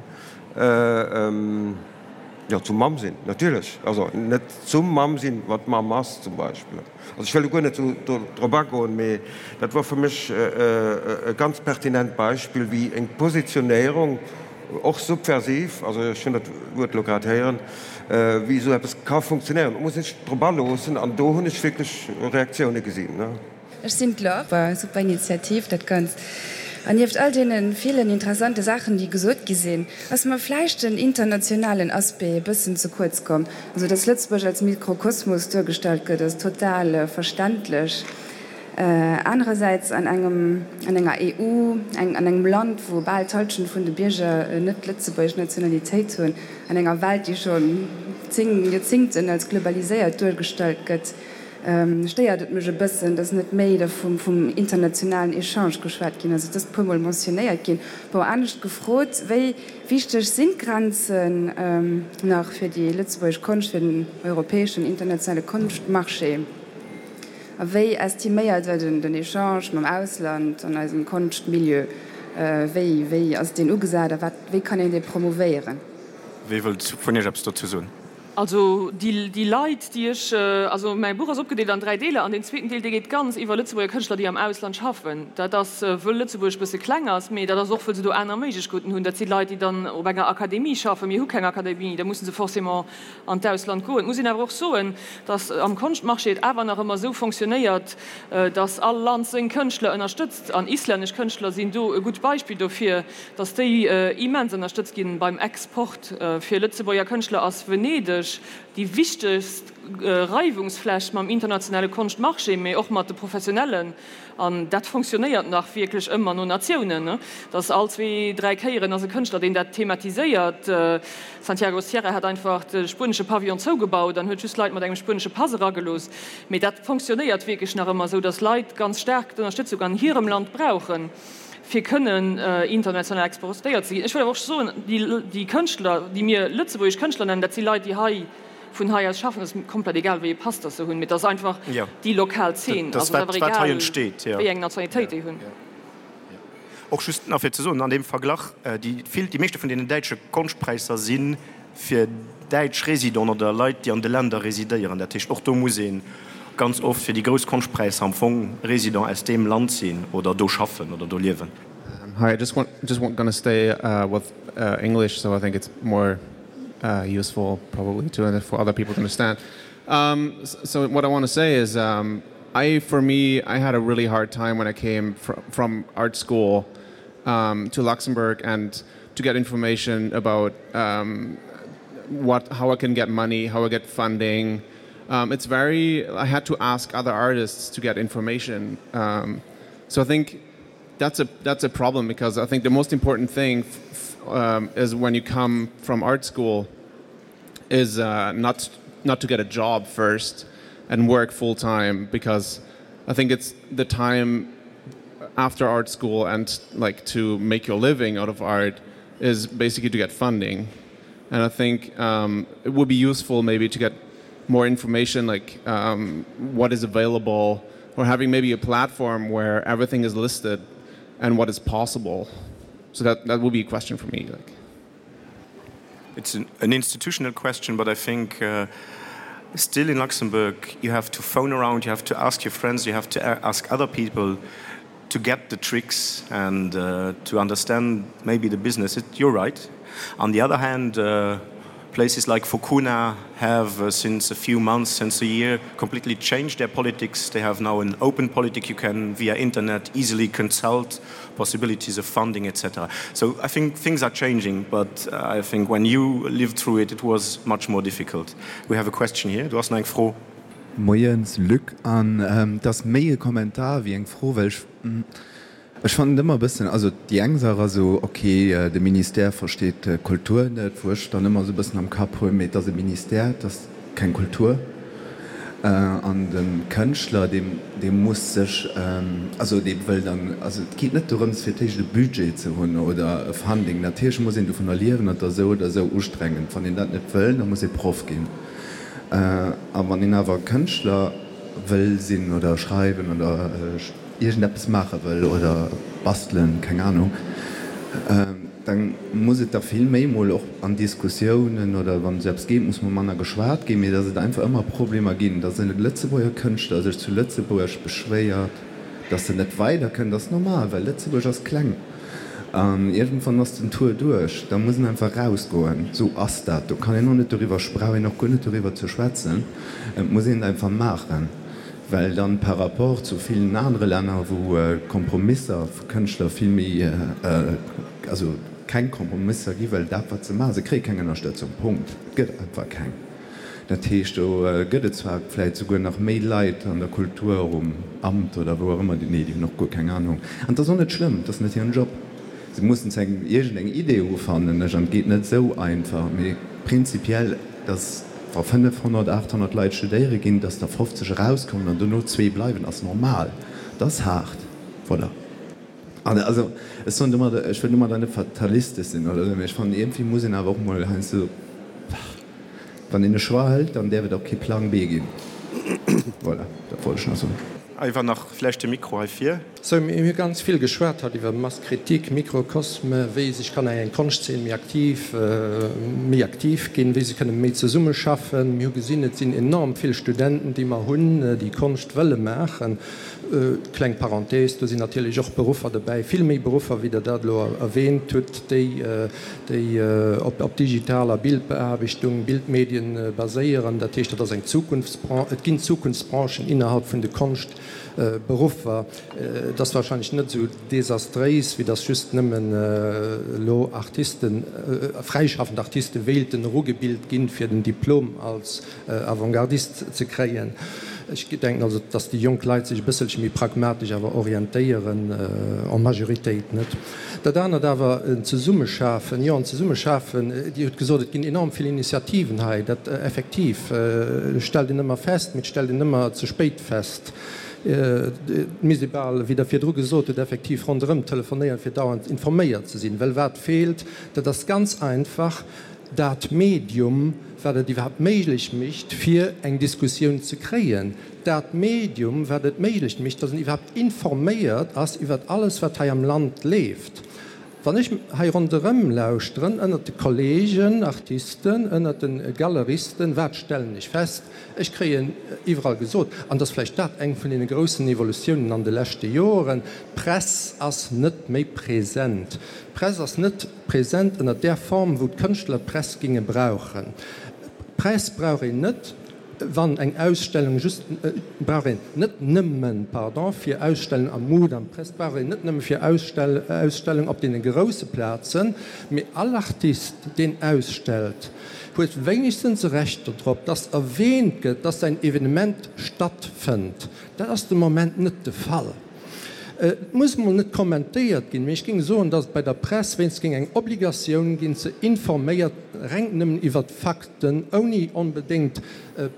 jo, zum Mamm sinn, natierlech. Also net zum Mamm sinn, wat d'Mamm ass zum Beispill. Also ech wëll elo guer net esou do drop agoen, mee dat war fir mech e ganz pertinent Beispill, wéi eng Positionéierung, och subversiv, also ech hunn dat Wuert elo grad héieren, wéi esou eppes ka funktionéieren. Et muss ee sech drop aloossen an do hunn ech wierklech Reaktioune gesinn. Ech sinn d'Laure. Super Initiativ dat Ganzt. An nieft all deene villen interessante Saachen déi gesot gi sinn, ass mer vläicht den internationalen Aspect e bëssen ze kuerz komm. Also dass Lëtzebuerg als Mikrokosmos duergestallt gëtt ass total verständlech. Anerersäits an engem, an enger EU, eng, an engem Land, wou bal d'Halschent vun de Bierger net lëtzebuergesch Nationalitéit hunn, an enger Welt, déi schonn 10 Joerzingten als globaliséiert duergestallt gëtt, stéiert et mech e bëssen, dass net méi da vum, vum internationalen Echange geschwat ginn ass. Et ass e puermol mentionnéiert ginn. Bon, anescht gefrot, Wéi wichteg sinn d'Grenzen nach fir déi lëtzebuergesch Konscht, fir den europäeschen internationale Konschtmarché? A wéi estiméiert Der den Echange mam Ausland an eisem Konschtmilieu? Wéi, wéi ass deen ugesat a wat, wéi kann een dee promouvéieren? Wie wëllt vun Iech eppes dozou soen? Also déi, déi Leit, déi ech, also mäi Buch ass opgedeelt an 3 Deeler an deen zweeten Deel, dee geet ganz iwwer Lëtzebuerger Kënschtler, déi am Ausland schaffen. Dat ass, wëll Lëtzebuerg e bësse kleng ass, mee dat ass och, wëll se do aner Méiglechkeeten hunn. Dat si Leit, déi dann op enger Akademie schaffen. Mir hu keng Akademie, da musse se forcément an d'Ausland goen. Et muss een awer och soen, datt am Konschtmarché et awer nach ëmmer esou fonctionnéiert, datt all Land seng Kënschtler ënnerstëtzt. An islännesch Kënschtler sinn do e gutt Beispill dofir, datt déi immens ënnerstëtzt ginn beim Export. Fir Lëtzebuerger Kënschtler ass Venedeg déi wichtegst Reiwungsfläch mam internationale Konschtmarché, mee och mat de Professionellen. An dat fonctionnéiert nach wierklech ëmmer no Natiounen, dass all zwee, dräi Kéieren ass e Kënschtler, deen dat thematiséiert. Santiago Sierra hat einfach de spuenesche Pavillon zougebaut an huet just Leit mat engem spuenesche Pass eragelooss. Mee dat fonctionnéiert wierklech nach ëmmer esou, dass Leit ganz staark d'Ënnerstëtzung an hirem Land brauchen, fir kënnen international exportéiert ze ginn. Ech wëll awer och soen, déi Kënschtler, déi mir lëtzebuergesch Kënschtler nennen, dat si Leit, déi hei, vun hei aus schaffen, ass komplett egal wéi ee Pass dass se hunn, mee et ass einfach déi lokal Zeen, also et ass awer egal wéi eng Nationalitéit déi hunn. Och just nach fir ze soen an deem Verglach, déi vill, déi meeschte vun deenen däitsche Konschtpräisser si fir däitsch Résidenten oder Leit déi an de Länder residéieren. Dat heescht och do muss ee ganz oft fir déi grouss Konschtpräisser am Fong Résident aus deem Land sinn oder do schaffen oder do liewen. Hi, I just want just want gonna stay with English, so I think it's more uh, useful probably to for other people to understand. Um, so what I want to say is um, I for me I had a really hard time when I came fr from art school um, to Luxembourg and to get information about um, what how I can get money, how I get funding. Um, it's very I had to ask other artists to get information. Um, so I think that's a that's a problem because I think the most important thing um, is when you come from art school is uh, not not to get a job first and work full time because I think it's the time after art school and like to make your living out of art is basically to get funding and I think um, it would be useful maybe to get more information like um, what is available or having maybe a platform where everything is listed and what is possible so that that would be a question for me like it's an, an institutional question but I think uh, still in Luxembourg you have to phone around you have to ask your friends you have to ask other people to get the tricks and uh, to understand maybe the business it, you're right on the other hand uh,. Places like Fukuna have uh, since a few months, since a year, completely changed their politics. They have now an open politic. You can, via internet, easily consult possibilities of funding, etc. So I think things are changing, but uh, I think when you lived through it, it was much more difficult. We have a question here. Du hast eng Fro. Moies Luc, an ähm, et ass méi e Kommentar wéi eng Fro, well ech ech fannen et ëmmer e bëssen, also déi eng Saach ass esou, ok, de Ministère versteet d'Kultur net, wou ech dann ëmmer esou e bëssen am Kapp hunn, mee et ass e Ministère, et ass keng Kultur. An de Kënschtler, dee dee muss sech, also dee wëll dann, also et geet net dorëms fir d'éischt e Budget ze hunn oder e Funding, natierlech muss een dovunner liewen an et ass esou oder esou ustrengend. Wann een dat net wëll, da muss ee Proff ginn. A wann een awer Kënschtler wëll sinn oder schreiwen oder iergendeppes maache wëll oder bastelen, keng Anung, da muss et da vill méi mol och an Diskussiounen oder wann esou eppes geet, muss mol manner geschwat ginn, mee datt et einfach ëmmer Problemer ginn, datt e Lëtzebuerger Kënschtler sech zu Lëtzebuerg beschwéiert, Dass en net weider kënnt ass normal, well Lëtzebuerg ass kleng an iergendwann ass den Tour duerch, da muss en einfach rausgoen. Sou ass dat, do kann een och net doriwwer, brauch een och guer net doriwwer ze schwätzen, et muss een et einfach maachen, well dann par rapport zu villen anere Länner, wou d'Kompromisser vu Kënschtler vill méi, also keng Kompromisser gi well dat wat se maachen, se kréie keng Ënnerstëtzung, Punkt, et gëtt einfach keng. Dat heescht, do gëtt et zwar vläicht souguer nach méi Leit an der Kultur, um Amt oder wou och ëmmer, nee, déi hunn och guer keng Anung. An et ass och net schlëmm, et ass net hiren Job. Se mussen zu engem iergendeng Idee hu fannen ech, an et geet net esou einfach. Mee prinzipiell, datt wa 500, 800 Leit studéiere ginn, datt der 50 erauskommen an dono zwee bleiwen, ass normal. Dat ass haart. Voilà. An also, ech soen domadder, ech wëll domadder net fatalistesch sinn oder esou, mee ech fannen, iergendwéi muss een awer och mol heiansdo, wann een e Choix hëlt, dann däerf et och kee Plang B ginn. Voilà, dat wollt ech nach soen. Iwwer nach vläicht de Mikro hei vir. Sou, mir hu ganz vill geschwat haut iwwer Masse critique, Mikrokosme, wéi sech kann eng Konschtzeen méi aktiv, méi aktiv ginn, wéi se kënne méi zesummeschaffen. Mir hu gesinn, et sinn enorm vill Studenten, déi mer hunn, déi Konscht wëlle maachen. Kleng Parenthèse, do sinn natierlech och Beruffer dobäi, vill méi Beruffer, wéi Der dat elo erwähnt hutt, déi, déi op digitaler Bildbeaarbechtung, Bildmedien baséieren. Dat heescht, dat ass eng Zukunftsbranche. Et ginn Zukunftsbranchen innerhalb vun de Konschtberuffer. Et ass wahrscheinlech net esou desastréis, wéi datt just nëmmen elo Artisten, fräischaffend Artiste wéilten erugebilt ginn, fir den Diplom als Avantgardist ze kréien. Ech denken also, dass déi jonk Leit sech e bësselche méi pragmatesch awer orientéieren, en Majoritéit, net? Dat anert awer, en Zesummeschafen, jo, en Zesummeschafen, Dir hutt gesot, et ginn enorm vill Initiativen hei. Dat effektiv stellt een ëmmer fest, mee et stellt een ëmmer ze spéit fest. Et misst ee bal, wéi Der virdru gesot hutt, effektiv ronderëm telefonéieren, fir dauernd informéiert ze sinn. Well wat feelt, dat ass ganz einfach, dat Medium, wat et iwwerhaapt méiglech mécht, fir eng Diskussioun ze kréien, dat Medium, wat et méiglech mécht, dass een iwwerhaapt informéiert ass iwwert alles, wat hei am Land leeft. Wann ech hei ronderëm lauschteren, ënnert de Kollegen Artisten, ënnert de Galeristen, wat stellen ech fest? Ech kréien iwwerall gesot, an et ass vläicht dat eng vun deene groussen Evolutiounen an de leschte Joren, d'Press ass net méi present. D'Press ass net Present ënner där Form, wou d'Kënschtler d'Press ginge brauchen. D'Press brauch een net, wann eng Ausstellung just, brauch een net nëmmen, pardon, fir Ausstellung am Mudam, d'Press brauch een net nëmme fir Ausstellung op deene grousse Plazen, mee all Artist, deen ausstellt, huet wéinegstens e Recht dodrop, dass erwähnt gëtt, dass säin Evenement stattfënnt. Dat ass de Moment net de Fall. Et muss mol net kommentéiert ginn, mee ech géing soen, datt et bei der Press wéinst géing eng Obligatioun ginn, ze informéiert reng nëmmen iwwert Fakten, ouni onbedéngt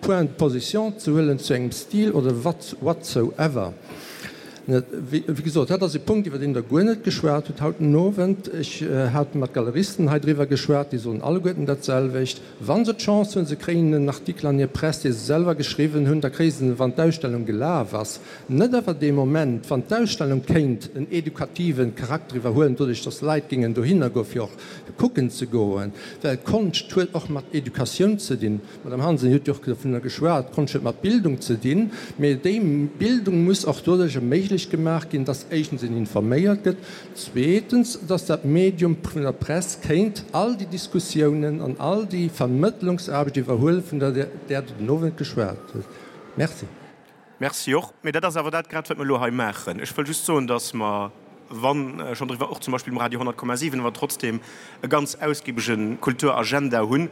Point de position ze huelen zu engem Stil oder whatsoever. Wéi gesot, dat ass e Punkt, iwwer deen Der guer net geschwat hutt haut den Owend. Ech hat mat Galeristen hei driwwer geschwat, déi soen alleguerten dat selwecht. Wa se d'Chance hunn, se kréien en Artikel an hir Press, dee se selwer geschriwwen hunn, da kréie se en, wann d'Ausstellung gelaf ass. Net awer dee Moment, wann d'Ausstellung kéint en edukative Charakter iwwerhuelen, doduerch datt Leit géingen dohinner goen, fir och kucken ze goen. Well Konscht huet och mat Educatioun ze dinn. D'Madame Hansen huet jo och dovunner geschwat, Konscht huet mat Bildung ze dinn. Mee déi Bildung muss och doduerch erméiglecht. méiglech gemaach ginn, dass éischtens een informéiert gëtt, zweetens, dass dat Medium vun der Press kéint all déi Diskussiounen an all déi Vermëttlungsaarbecht iwwerhuelen, vun der Der den Owend geschwat hutt. Merci. Merci och. Mee dat ass awer dat grad, wat mer elo hei maachen. Ech wëll just soen, dass mer, wann schonn driwwer, och zum Beispill um Radio 100,7, awer trotzdem e ganz ausgibege Kulturagenda hunn.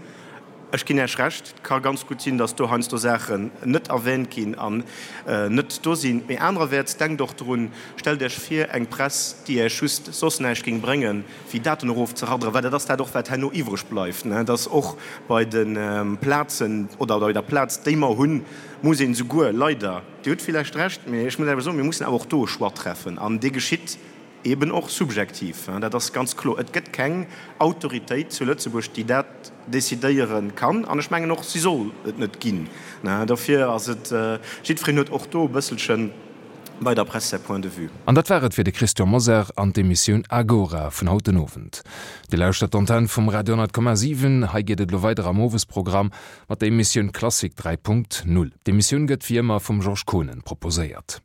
Ech ginn Iech Recht, et ka ganz gutt sinn, dass do heiansdo Saachen net erwähnt ginn an net do sinn. Mee anererwäerts, denkt och drun, stellt Iech vir, eng Press, déi Iech just soss näischt géing bréngen, wéi Daten erofzeradderen, well dat ass dat och, wat herno iwwreg bleift, dass och bei de Plazen oder bei der Plaz, déi mer hunn, muss een esouguer, leider, Dir hutt villäicht Recht, mee ech muss awer soen, mir mussen awer och do e Choix treffen an dee geschitt eben och subjektiv, dat ass ganz kloer. Et gëtt keng Autoritéit zu Lëtzebuerg, déi dat decidéiere kann an ech mengen och, si soll et net ginn. Dofir ass et, jiddwereen huet och do e bësselchen bei der Press säi Point de vue. An dat war et fir de Christian Mosar an d'Emissioun Agora vun haut den Owend. Dir lauschtert d'Antenn vum Radio 10,7. Hei geet et elo weider am Owesprogramm mat der Emissioun Klassik 3.0. D'Emissioun gëtt wéi ëmmer vum Georges Konen proposéiert.